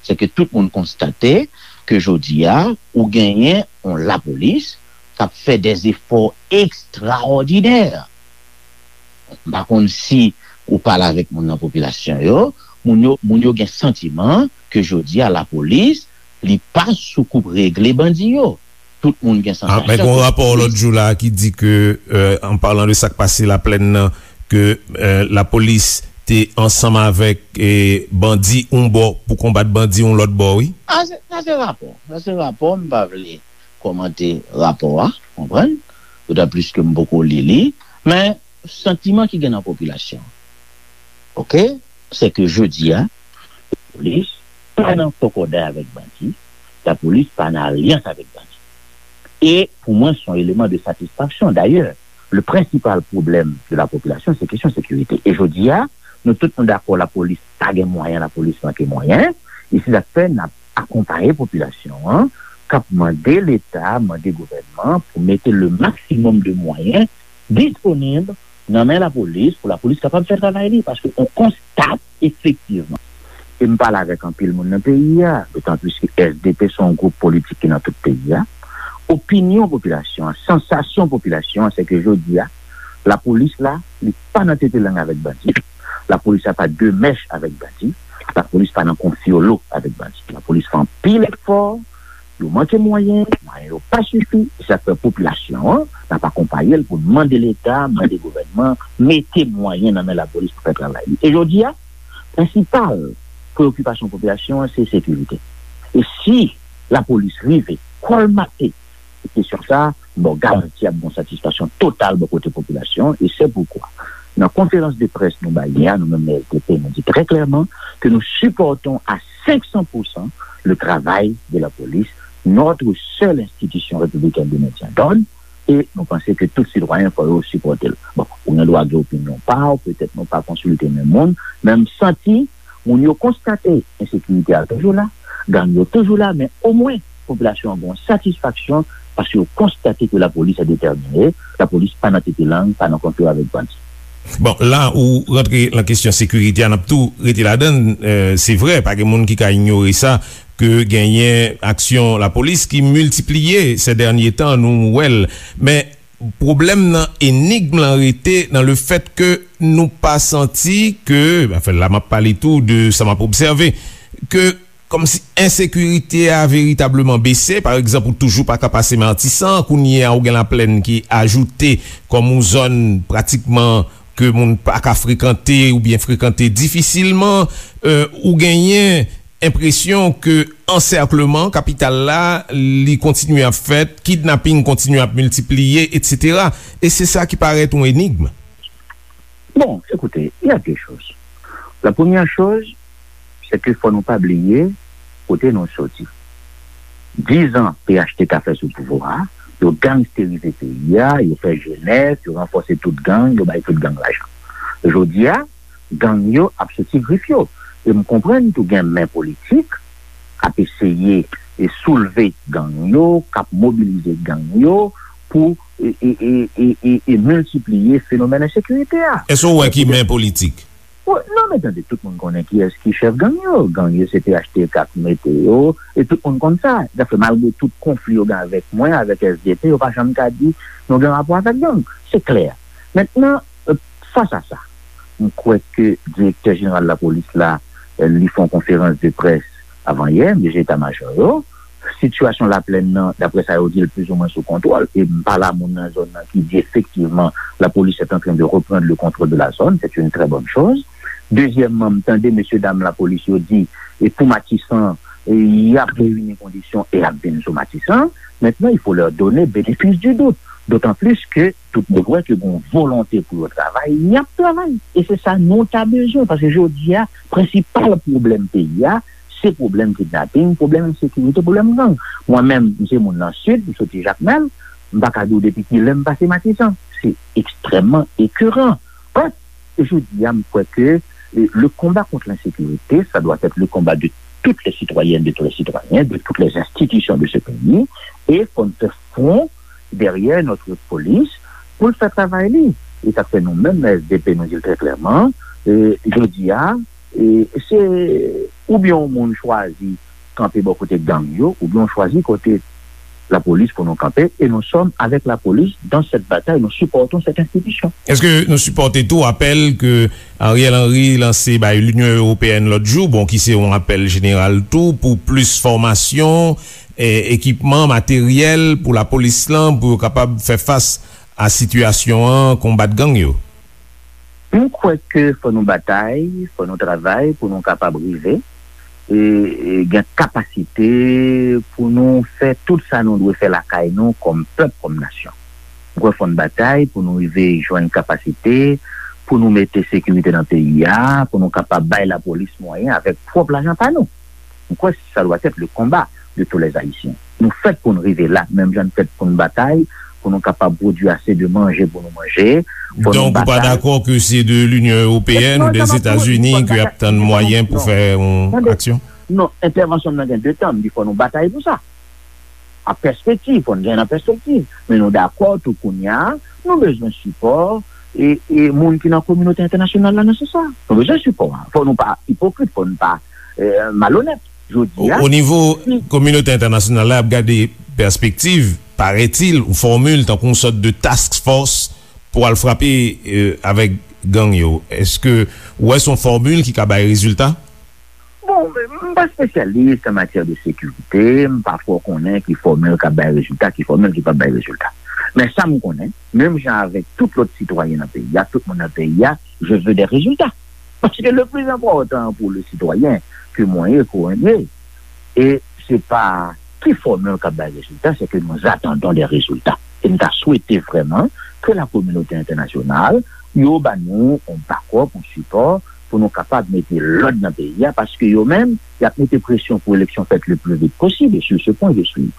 Se ke tout moun konstate ke jodi a, ou genyen yon lapolis k ap fè dè efò ekstraòdinè. M pa konn si ou pale avèk moun nan popilasyon yo, moun yo, moun yo gen santiman ke jodi a lapolis Li pa sou koup regle bandi yo. Tout moun gen sansasyon. Ah, men gen yon rapò lòt jou la ki di ke, euh, an palan de sa k pase Laplèn nan, ke, euh, lapolis te ansanm avèk, eh, bandi yon bò pou konbat bandi yon lòt bò, wi. Ah, se, sa se rapò. Sa se rapò, m pa vle kòmante rapò a, konprann? Dotan plis ke m poko li li, men santiman ki gen nan popilasyon, oke, se ke jodi a, lapolis pa nan kòkòday avèk bandi, lapolis pa nan alyans avèk bandi. E pou mwen, se yon eleman de satisfaksyon. Dayè, le prensipal pwoblèm de la popilasyon, se kesyon sekirite. E jodi a, nou tout nou dakò, lapolis pa gen mwayen, lapolis manke mwayen. E se sa k fè n ap akonpaye popilasyon an, k ap mande Leta, mande gouvènman pou mete le maksimòm de mwayen disponib nan men lapolis pou lapolis kapab fè travay li, paske on konstate efektivman, e m pale avèk anpil moun nan peyi a, dotan plis ke S D P se yon gwoup politik ki nan tout peyi a, opinyon popilasyon an, sansasyon popilasyon an, se ke jodi a, lapolis la, li pa nan tete lang avèk bandi, lapolis la pa de mèch avèk bandi, lapolis pa nan konfyolo avèk bandi. Lapolis fè anpil efò, yo manke mwayen, mwayen yo pa sifi, e sa k fè popilasyon an, n ap akonpaye l pou n mande Leta, mande gouvènman, mete mwayen nan men lapolis pou fè travay li. E jodi a, prensipal preyokipasyon popilasyon an, se sekirite. E si lapolis rive kòlmate kesyon sa, m ba w garanti ap gen yon satisfaksyon total bò kote popilasyon, e se poukwa, nan konferans de près nou bay yè a, nou menm S D P, nou di trè klèman ke nous supportons à cinq cents pour cent le travail de la police, notre seule institution républicaine de maintien d'ordre, e nou panse ke tout sitwayen fò yo sipòte l. Bon, ou gen dwa gen opinyon pa w, petèt nou pa konsilte menm moun, men m santi moun yo konstate ensekirite a toujou la, gang yo toujou la, men omwen popilasyon an gen yon satisfaksyon paske yo konstate ke lapolis a detèmine, lapolis pa nan tete lang, pa nan konfli avèk bandi. Bon, la ou rantre nan kesyon sekirite a, n ap tou rete ladan l. Euh, se vre, pa gen moun ki ka inyore sa, ke genyen aksyon lapolis ki miltipliye se dènye tan, nou wè l. Men pwoblèm nan, enigm lan rete nan le fèt ke nou pa santi ke, anfen, la m ap pale tou de sa m ap obsève, ke kòmsi ensekirite a veritableman bese. Pa egzanp, ou toujou pa ka pase Matisan, kounye a ou gen Laplèn ki ajoute kòm yon zòn pratikman ke moun pa ka frekante oubyen frekante difisilman. Euh, ou genyen enpresyon ke ansèkleman kapital la, li kontinye ap fèt, kidnaping kontinye ap miltipliye, etsetera. E se sa ki parèt yon enigm. Bon, écoutez, il y a deux choses. La première chose, c'est que fò nou pa bliye kote nou soti. Diz an P H T K fè sou pouvwa a, yo gangsterize peyi a, yo fè jenès, yo ranfòse tout gang, yo bay tout gang lajan. Jodi a, gang yo ap soti grif yo. E m konprann tou gen men politik k ap eseye e soulve gang yo, k ap mobilize gang yo pou e, e, e, e, e, e miltipliye fenomèn ensekirite a. Èske w wè ki men politik? Wi, non, men tande, tout moun konnen kiyès ki chèf gang yo. Gang yo se P H T K k mete yo, e tout moun konn sa. Dayè, malgre tout konfli yo gen avèk mwen, avèk S D P, yo pa janm ka di nou gen rapò avèk gang. Se klè. Mentnan, euh, fas a sa, m kwè ke direktè jeneral lapolis la, euh, li fè yon konferans de près avan yè, M D G eta majò yo. Sitiyasyon Laplèn nan, daprè sa yo di, l plizoumwen sou kontwòl. E m pale a moun nan zòn nan ki di, efektivman, la police est en train de reprendre le contrôle de la zone. C'est une très bonne chose. Dezyèmman, m tande mesye dam lapolis yo di, e pou Matisan, e y ap reyini kondisyon e y ap vin sou Matisan. Maintenant, il faut leur donner bénéfice du doute. D'autant plus que tout moun wè ke gen yon volonte pou yo travay, y ap travay. E se sa nou ta bezwen, paske jodi a, prensipal pwoblèm peyi a, se pwoblèm kidnaping, pwoblèm ensekirite, pwoblèm gang. Mwen menm, m se moun nan Sid, m soti Jakmèl, m pa ka di w depi kilè m pase Matisan. Se ekstrèmman ekeran. Bref, e jodi a, m kwè ke, e, le combat contre l'insécurité, ça doit être le combat de toutes les citoyennes, de tous les citoyens, de toutes les institutions de ce pays, e fò n fè fwon dèyè notre police pou l fè travay li. E sa k fè nou menm nan S D P, nou di l trè klèman, e, jodi a, e, se oubyen yon moun chwazi kanpe bò kote gang yo, oubyen w chwazi kote lapolis pou nou kanpe, e nous sommes avec la police dans cette bataille, nous supportons cette institution. Èske nou sipòte tou apèl ke Ariel Henry lanse bay Linyon Ewopeyèn lòt jou, bon, ki se yon apèl jeneral tou pou plis fòmasyon, e, ekipman, materyèl pou lapolis lan, pou yo kapab fè fas a sitiyasyon an, konbat gang yo? M kwè ke fò nou batay, fò nou travay pou nou kapab rive e, e gen kapasite pou nou fè tout sa nou dwe fè lakay nou kòm pèp, kòm nasyon. M kwè fò n batay pou nou rive jwenn kapasite pou nou mete sekirite nan peyi a, pou nou kapab bay lapolis mwayen avèk pwòp lajan pa nou. M kwè sa dwa èt le konba de tous les Ayisyen. Nou fèt pou n rive la, menm jan n fèt pou n batay, pou nou kapab pwodui ase de manje pou nou manje. Fò nou Donk, ou pa batay. Dakò ke se de Linyon Ewopeyèn Non, ou de sa pa pou Zetazini pou ke y ap tann mwayen pou fè yon aksyon? Non, entèvansyon m nan gen de tan, m di fò nou batay pou sa. A pèspektiv, fò n gen nan pèspektiv. Men nou dakò tou kounye a, nou bezwen sipò e, e moun ki nan kominote entènasyonal la nan sans sa. Nou bezwen sipò a. Fò nou pa ipokrit, fò nou pa e, malonèt. Jodi O, a, o nivo si kominote entènasyonal la ap gade pèspektiv, parètil, ou fòmil tankou yon sòt de task force pou al frape e, avèk gang yo. Èske ou wè se yon fòmil ki ka bay rezilta? Bon, m pa espesyalis an matyè de sekirite, m pa twò konnen ki fòmil k ap bay rezilta, ki fòmil ki p ap bay rezilta. Men sa m konnen, menm jan avèk tout lòt sitwayen nan peyi a, tout moun nan peyi a, je veux des résultats. Paske le plis enpòtan pou le sitwayen ke mwen ye, ke w ye, e se pa ki fòmil k ap bay rezilta, se ke nous attendons des résultats. E m ta swete vrèman ke la kominote entènasyonal, yo ba nou yon bakòp, yon sipò, pou nou kapab mete lòd nan peyi a, paske yo menm, y ap mete presyon pou eleksyon fèt le plus vite possible. Et sur ce point, je suis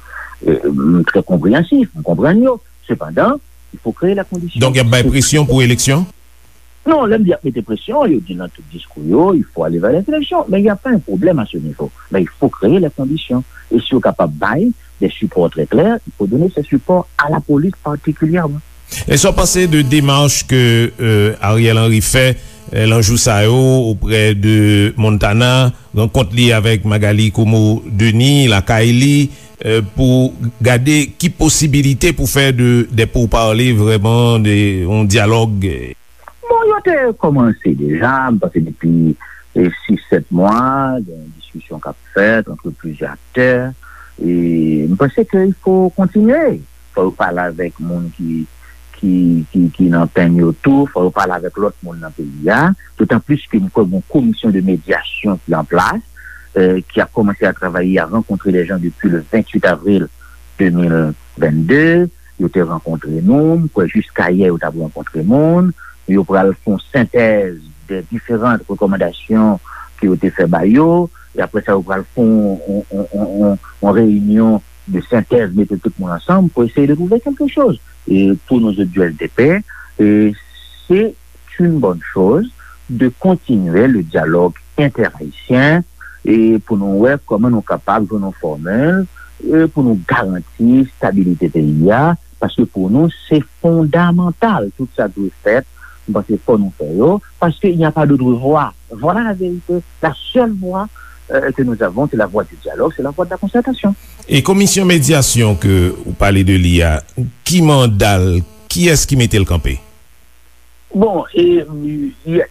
euh, très compréhensif, m konprann yo. Sepandan, il faut créer la condition. Donk, y ap bay presyon pou eleksyon? Non, lè m di y ap mete presyon, yo di nan tout diskou yo, il faut aller vers les élections. Mais il n'y a pas un problème à ce niveau. Mais il faut créer les conditions. Et si yo kapab bay des supports très clairs, il faut donner ces supports à la police particulièrement. E sa w panse de demach ke euh, Ariel Henry fè euh, lan jou sa yo oprè de Montana, rankont li avèk Magalie Comeau Denis lakay li euh, pou gade ki posibilite pou fè de, de pourparlers vrèman, de, yon dyalòg? Bon, yo te kòmanse deja, m panse depi e, sis, sèt mwa, gen diskisyon k ap fèt antre plizyè aktè. E m panse ke il faut continuer. Fò yo pale avèk moun ki, ki, ki, ki nan penn yo tou, fò yo pale avèk lòt moun nan peyi a. Dotan plis ke m kwè gen yon komisyon de medyasyon ki an plas, euh, ki a commencé à travailler, à rencontrer les gens depuis le vingt-huit avril deux mille vingt-deux. Yo te rankontre nou, m kwè jiska yè yo t ap rankontre moun. Yo pral fè yon sentèz de diferan rekòmandasyon ke yo te fè ba yo. E apre sa, yo pral fè yon, yon, yon, yon, yon, yon reyinyon de sentèz, mete tout moun ansanm pou eseye de trouver quelque chose. E pou nou zòt di S D P, e se une bonne chose de continuer le dialogue interhaïtien e pou nou wè kòman nou kapab jwenn yon fòmil e pou nou garanti stabilite peyi a, paske pou nou se fondamantal. Tout sa dwe fèt, m panse fò nou fè yo, paske il n'y a pas d'autre voie. Voilà la vérité. La seule voie euh, que nous avons, c'est la voie du dialogue, c'est la voie de la concertation. E komisyon medyasyon ke ou pale de li a, ki manda l, kiyès ki mete l kanpe? Bon, e, e,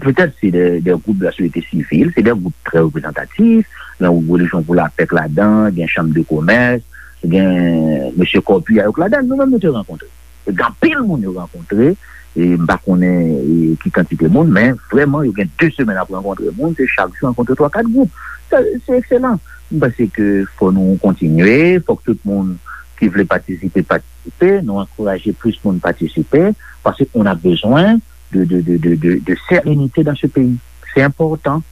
petèt se de, de gwoup de la sosyete sivil, se de gwoup trè reprezantatif, gen gwoup Relijyon pou Lapè k ladan, gen Chanm de Komès, gen mesye Corpia yo k ladan, nou menm nou te rankontre. Gen anpil moun yo rankontre, e m pa konnen e, ki kantite moun, men vrèman yo gen de semèn ap rankontre moun, se chak jou rankontre twa kat gwoup. Sa, se ekselan. M panse ke fò nou kontinye, fò k tout moun ki vle patisipe, patisipe, nou ankouraje plis moun patisipe, paske on a bezwen de, de, de, de, de, de sérénité dans ce pays. Se enpòtan.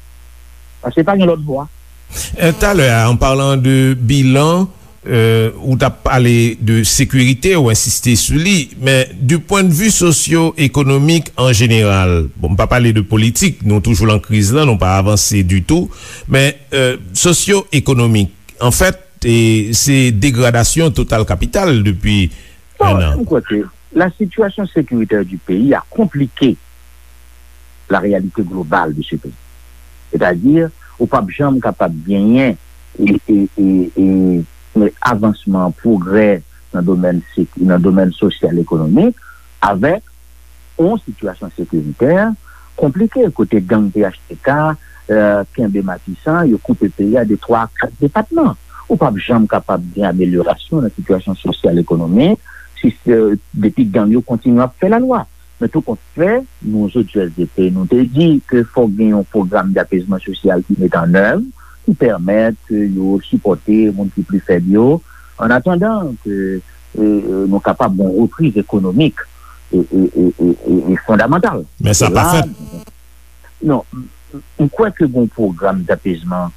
Paske pa gen lòt vwa. Euh, talè a, an palan de bilan, euh, ou t ap pale de sekirite, ou ensiste sou li, men du point de vue sosyo-ekonomik an jeneral, bon, m pa pale de politik, nou toujou lan kriz lan, nou pa avanse ditou, men euh, sosyo-ekonomik, anfèt, e, se degradasyon total kapital depi Bon, un an. M kwè ke la situation sécuritaire du pays a compliqué la réalité globale de ce pays. C'est-à-dire, ou p ap janm kapab genyen e, e, e, e, avansman, pwogrè nan domèn sek-, nan domèn sosyal ekonomik, avèk yon sitiyasyon sekiritè konplike, kote gang P H T K, eh, kenbe Matisan, yo koupe peyi a de twa a kat depatman. Ou p ap janm kapab gen amelyorasyon nan sitiyasyon sosyal ekonomik si, eh, depi gang yo kontinye ap fè lalwa. Men tou kont fè, nou, zot, U S D P, nou te di ke fòk gen yon pwogram dapezman sosyal ki met an èv, ki pèmèt ke yo sipòte moun ki pli fèb yo, an atandan ke, eh, eh, nou kapab gen yon repriz ekonomik e, e, e, e, e, e fondamantal. Men sa pa fèt. Non, m, m, m kwè ke gen yon pwogram dapezman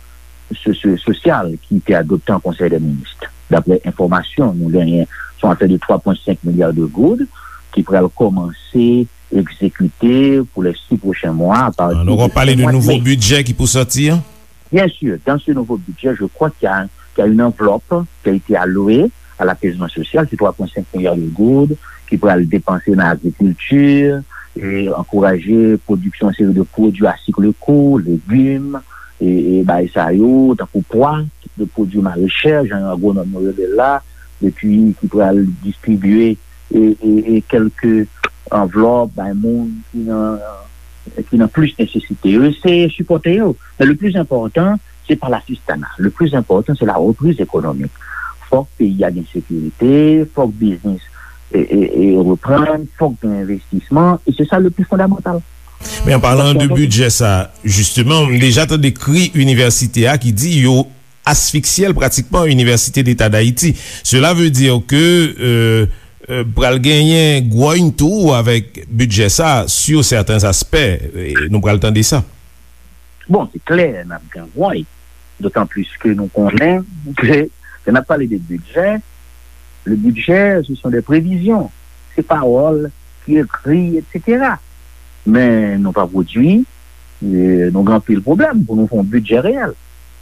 so-, so-, sosyal ki te adopte an Konsèy dè Minis. Daprè enfòmasyon nou genyen, se yon afè de twa pwen senk milya de goud ki pral kòmanse egzekite pou les six prochains mois, à partir Nou du pral pale de nouvo bidjè ki pou sòti an? Bien sûr, dans ce nouveau budget, je crois qu'il y a, qu'il y a une enveloppe qui a été allouée à l'apaisement social, c'est trois point cinq milliards de goud, ki pral depanse nan agrikilti, e ankouraje pwodiksyon yon seri de pwodui à cycle court, legim, e, e bagay sa yo, tankou pwa, de pwodui marechè, jan agwonòm yo rele l la, epi ki pral distribye e, e, e kèlke anvlòp bay moun ki nan, ki nan plis nesesite yo. Eseye sipòte yo. Men le plis enpòtan, se pa lasistana. Le plis enpòtan, se la reprise économique. Fòk peyi a gen sekirite, fòk biznis e, e, e reprann, fòk gen envestisman, e se sa le plis fondamantal. Men an palan de bidjè sa, jisteman, m deja tande kri inivèsite a ki di yo asfiksye l pratikman, Université d'État d'Haïti. Cela veut dire que, euh, euh, pral genyen gwòny tou avèk bidjè sa sur certains aspects. E nou pral tande sa. Bon, se klè, n ap gen gwòny. Dotan plis ke nou konnen ke lè n ap pale de bidjè, le budget, ce sont des prévisions. Se pawòl ki ekri, et cetera. Men nou pa pwodui, e nou gen anpil pwoblèm pou nou fè yon bidjè reyèl.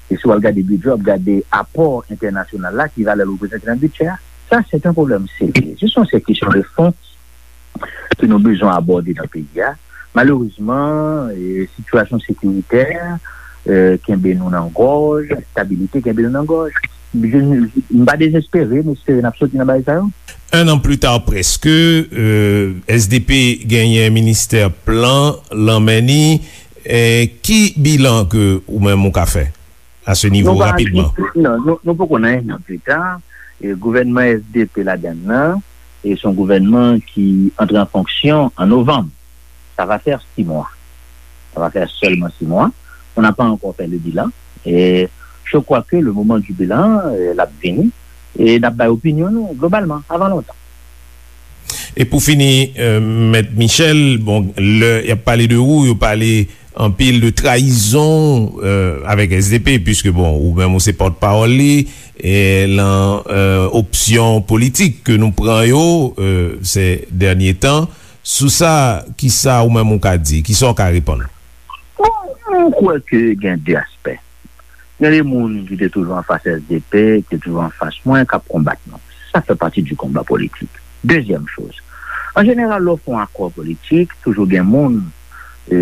E si w al gade bidjè, w ap gade apò entènasyonal la, ki valè l reprezante nan bidjè a. Sa, se yon pwoblèm serye. Se yon seri kesyon de fon ke nou bezwen abòde nan peyi a. Malerezman, e, sitiyasyon sekiritè, e, kenbe nou nan gòj, enstabilite kenbe nou nan gòj. Je, m pa dezespere, m espere n ap soti nan bagay sa yo. Un an pli ta, prèske, e, S D P genyen ministè plan lan men ni. E, ki bilan ke ou menm ou ka fè a se nivo rapidman? Non, nou, nou poko nan un an pli ta. E, gouvènman S D P ladann nan, e se yon gouvènman ki antre an fonksyon an novanm. Ça va faire six mois. Ça va faire seulement six mois. On n'a pas encore fait le bilan. Et je crois que le moment du bilan, euh, l ap vini. E n ap bay opinyon nou, globalman, avan lontan. E pou fini, euh, Mèt Michel, bon, lè y ap pale de ou, yo pale anpil de trayizon, euh, avèk S D P, puiske, bon, ou menm ou se pòtpawòl li, e lan, euh, opsyon politik ke nou pran yo, euh, ces derniers temps. Sou sa, kisa ou menm ou ka di? Kisa w ka reponn? Bon, mwen kwè ke gen de aspè. Gen de moun ki te toujou anfas S D P, ki te toujou anfas mwen, k ap konbat nou. Sa fè pati di konba politik. Dezyèm choz, an jeneral, lè w fè yon akò politik, toujou gen moun, e,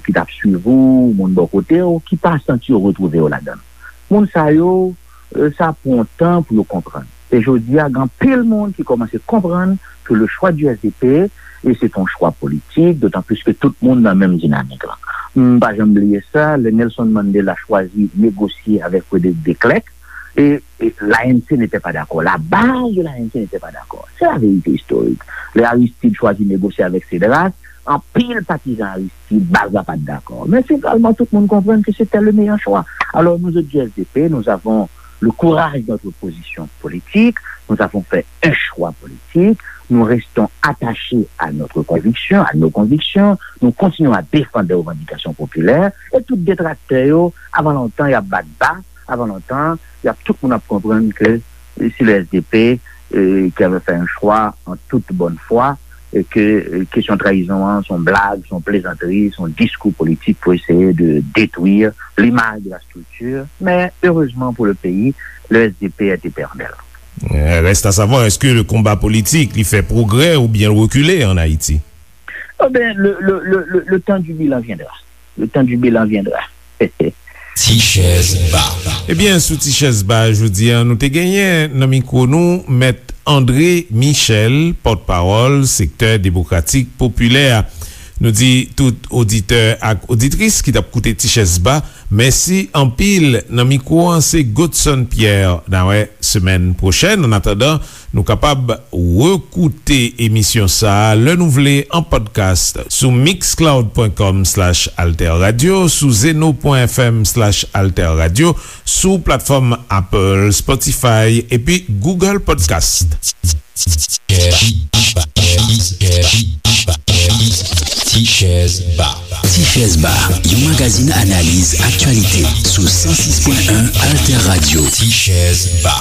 ki t ap swiv ou, moun bò kote w, ki pa santi yo retwouve yo ladan l. Moun sa yo, e, sa pran tan pou yo konprann. E jodi a, gen anpil moun ki kòmanse konprann ke le choix du S D P, e se t on chwa politik, dotan plis ke tout moun nan menm dinamik lan. M pa janm bliye sa, lè Nelson Mandela chwazi negosye avèk Frederick de Klerk, e, e l'A N C n'était pas d'accord. La base de l'A N C n'était pas d'accord. C'est la vérité historique. Lè Aristide chwazi negosye avèk Cédras, anpil patizan Aristide, baz la pa t dakò. Men finalman, tout moun konprann ke se te le meilleur choix. Alors, nous autres du S D P, nous avons le courage de notre position politique, nous avons fait un choix politique, nous restons attachés à notre conviction, à nos convictions, nous continuons à défendre des revendications populaires, et tout detraktè yo, avan lontan, y ap bat ba, avan lontan, y ap, tout moun ap konprann ke, e, c'est le S D P, e, qui avait fait un choix en toute bonne foi, e ke, e, kesyon trayizon an, se yon blag, se yon plezantri, se yon diskou politik pou eseye de détruire l'image de la structure. Mais heureusement pour le pays, le S D P est éternel. Euh, reste à savoir, est-ce que le combat politique, li fè pwogrè oubyen l rekile an Ayiti? Eh ben, le, le, le, le, le temps du bilan viendra. Le temps du bilan viendra. Ti Chèz Ba. Ebyen, sou Ti Chèz Ba jodi a, nou te genyen nan mikwo nou Mèt André Michel, pòtpawòl Sektè Demokratik Popilè a. Nou di tout oditè ak oditris ki t ap koute Ti Chèz Ba, mèsi anpil. Nan mikwo an, se Godson Pierre. N a wè semèn pwochèn. Annatandan, nou kapab rekoute emisyon sa a lè nou vle an podcast sou mixcloud pwen kòm slash alterradio, sou zeno pwen fm slash alterradio, sou platfòm Apple, Spotify epi Google Podcast. Ti Chèz Ba. Ti Chèz Ba, yon magazin analiz aktyalite sou san sis pwen en Alter Radio. Ti Chèz Ba.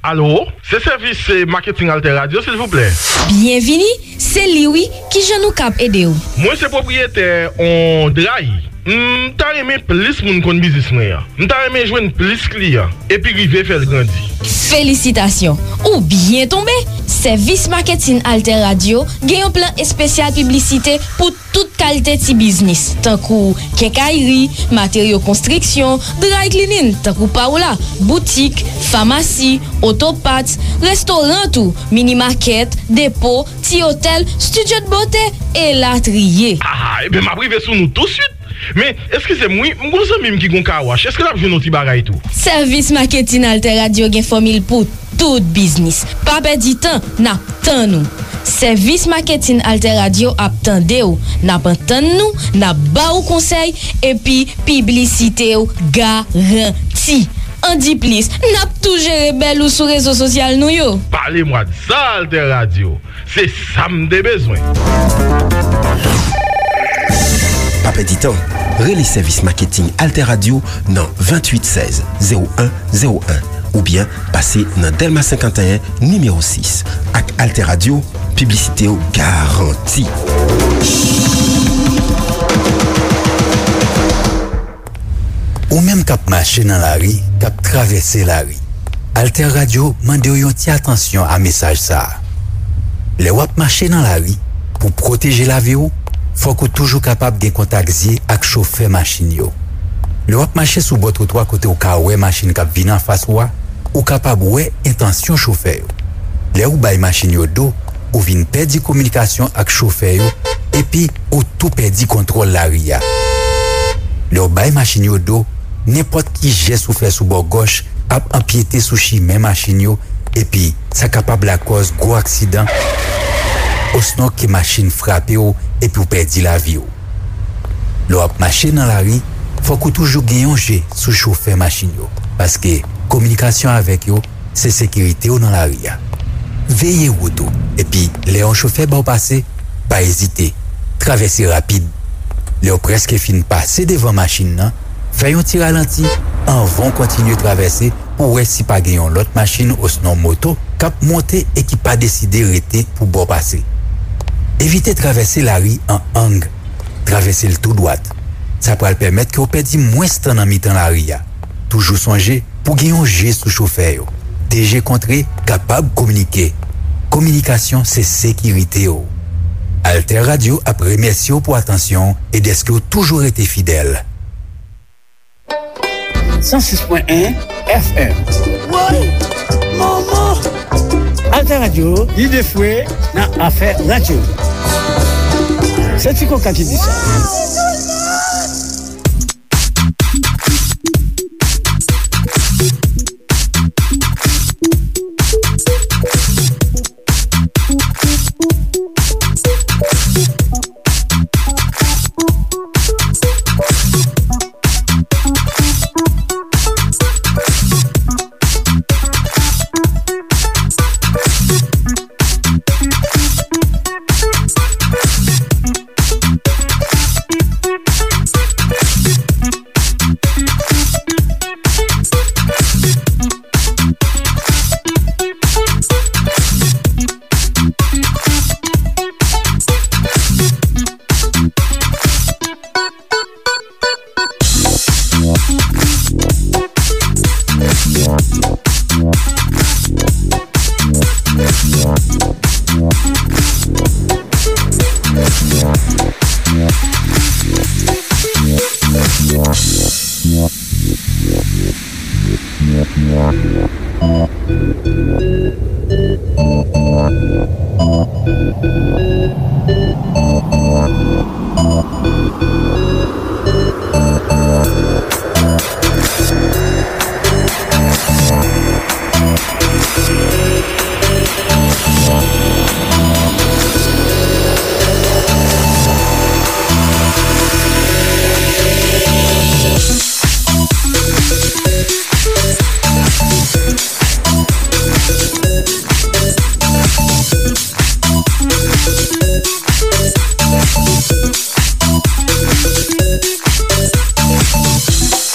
Alo, se sèvis, eh, maketing Alter Radio, silvouplè. Byenvini, se li wi, kijan nou kab ede w? Mwen se pwopriyetè on dray. M ta renmen plis moun konn biznis mwen an. M ta renmen jwenn plis kliyan, epi rive fè l grandi. Felisitasyon! Ou byen tonbe! Sèvis maketin Alter Radio gen yon plan espesyal piblisite pou tout kalite ti biznis, tankou kenkayri, materyo konstriksyon, dry cleaning, tankou pa w la, boutik, famasi, oto parts, restoran tou, mini makèt, depo, ti otèl, studio de beauté, elatriye. Ah, ebyen, m ap rive sou nou touswit. Men, eskize m wi, m gon zanmi m ki gon kawash. Èske l ap jwenn yon ti bagay tou? Sèvis maketin Alter Radio gen fòmil pou tout biznis. Pa pèdi tan, n ap tann ou. Sèvis maketin Alter Radio ap tande w, n ap antann nou, n ap ba ou konsèy, epi piblisite w garanti. Andiplis, n ap tou jere bèl ou sou rezo sosyal nou yo. Pale mwa de sa, Alter Radio. Se sa m te bezwen. Pa pèdi tan, rele sèvis maketing Alter Radio nan venntuit sèz zewo en zewo en oubyen pase nan Dèlma senkanteyen nimewo sis. Ak Alter Radio, piblisite w garanti. Ou menm k ap mache nan lari, k ap travèse lari, Alter Radio mande w yon ti atansyon a mesaj sa a. Lè w ap mache nan lari, pou pwoteje lavi w, fòk ou toujou kapab gen kontak zye ak chofè machin yo. Lè w ap mache sou bò twotwa kote w ka wè machin k ap vin anfas ou a, ou kapab wè entansyon chofè yo. Lè ou bay machin yo do, ou vin pèdi kominikasyon ak chofè yo, epi ou tou pèdi kontwòl lari a. Lè w bay machin yo do, nenpòt ki jès ou fè sou bò gòch ap anpyete sou chimen machin yo, epi sa kapab lakòz gwo aksidan, osnon ke machin frape w epi w pèdi lavi w. Lè w ap mache nan lari, fòk ou toujou gen yon je sou chofè machin yo, paske kominikasyon avèk yo se sekirite w nan lari a. Veye wout ou, epi lè yon chofè ba w pase, pa ezite, travèse rapid. Lè w prèske fin pase devan machin nan, fè yon ti ralanti anvan w kontinye travèse pou w wè si pa gen yon lòt machin osnon moto k ap monte e ki pa deside rete pou ba w pase. Evite travèse lari an ang. Travèse l tou dwat. Sa pral pèmèt ke w pèdi mwens tan nan mitan lari a. Toujou sonje pou gen yon je sou chofè yo. De je kontre kapab kominike. Kominikasyon se sekirite w. Alter Radio ap remèsye w pou atansyon w e dèske w toujou rete fidèl. San sis pwen en F M. Woy! Manman! Alter Radio, lide fwe nan afè radyo. Se Ti Koka ki di sa.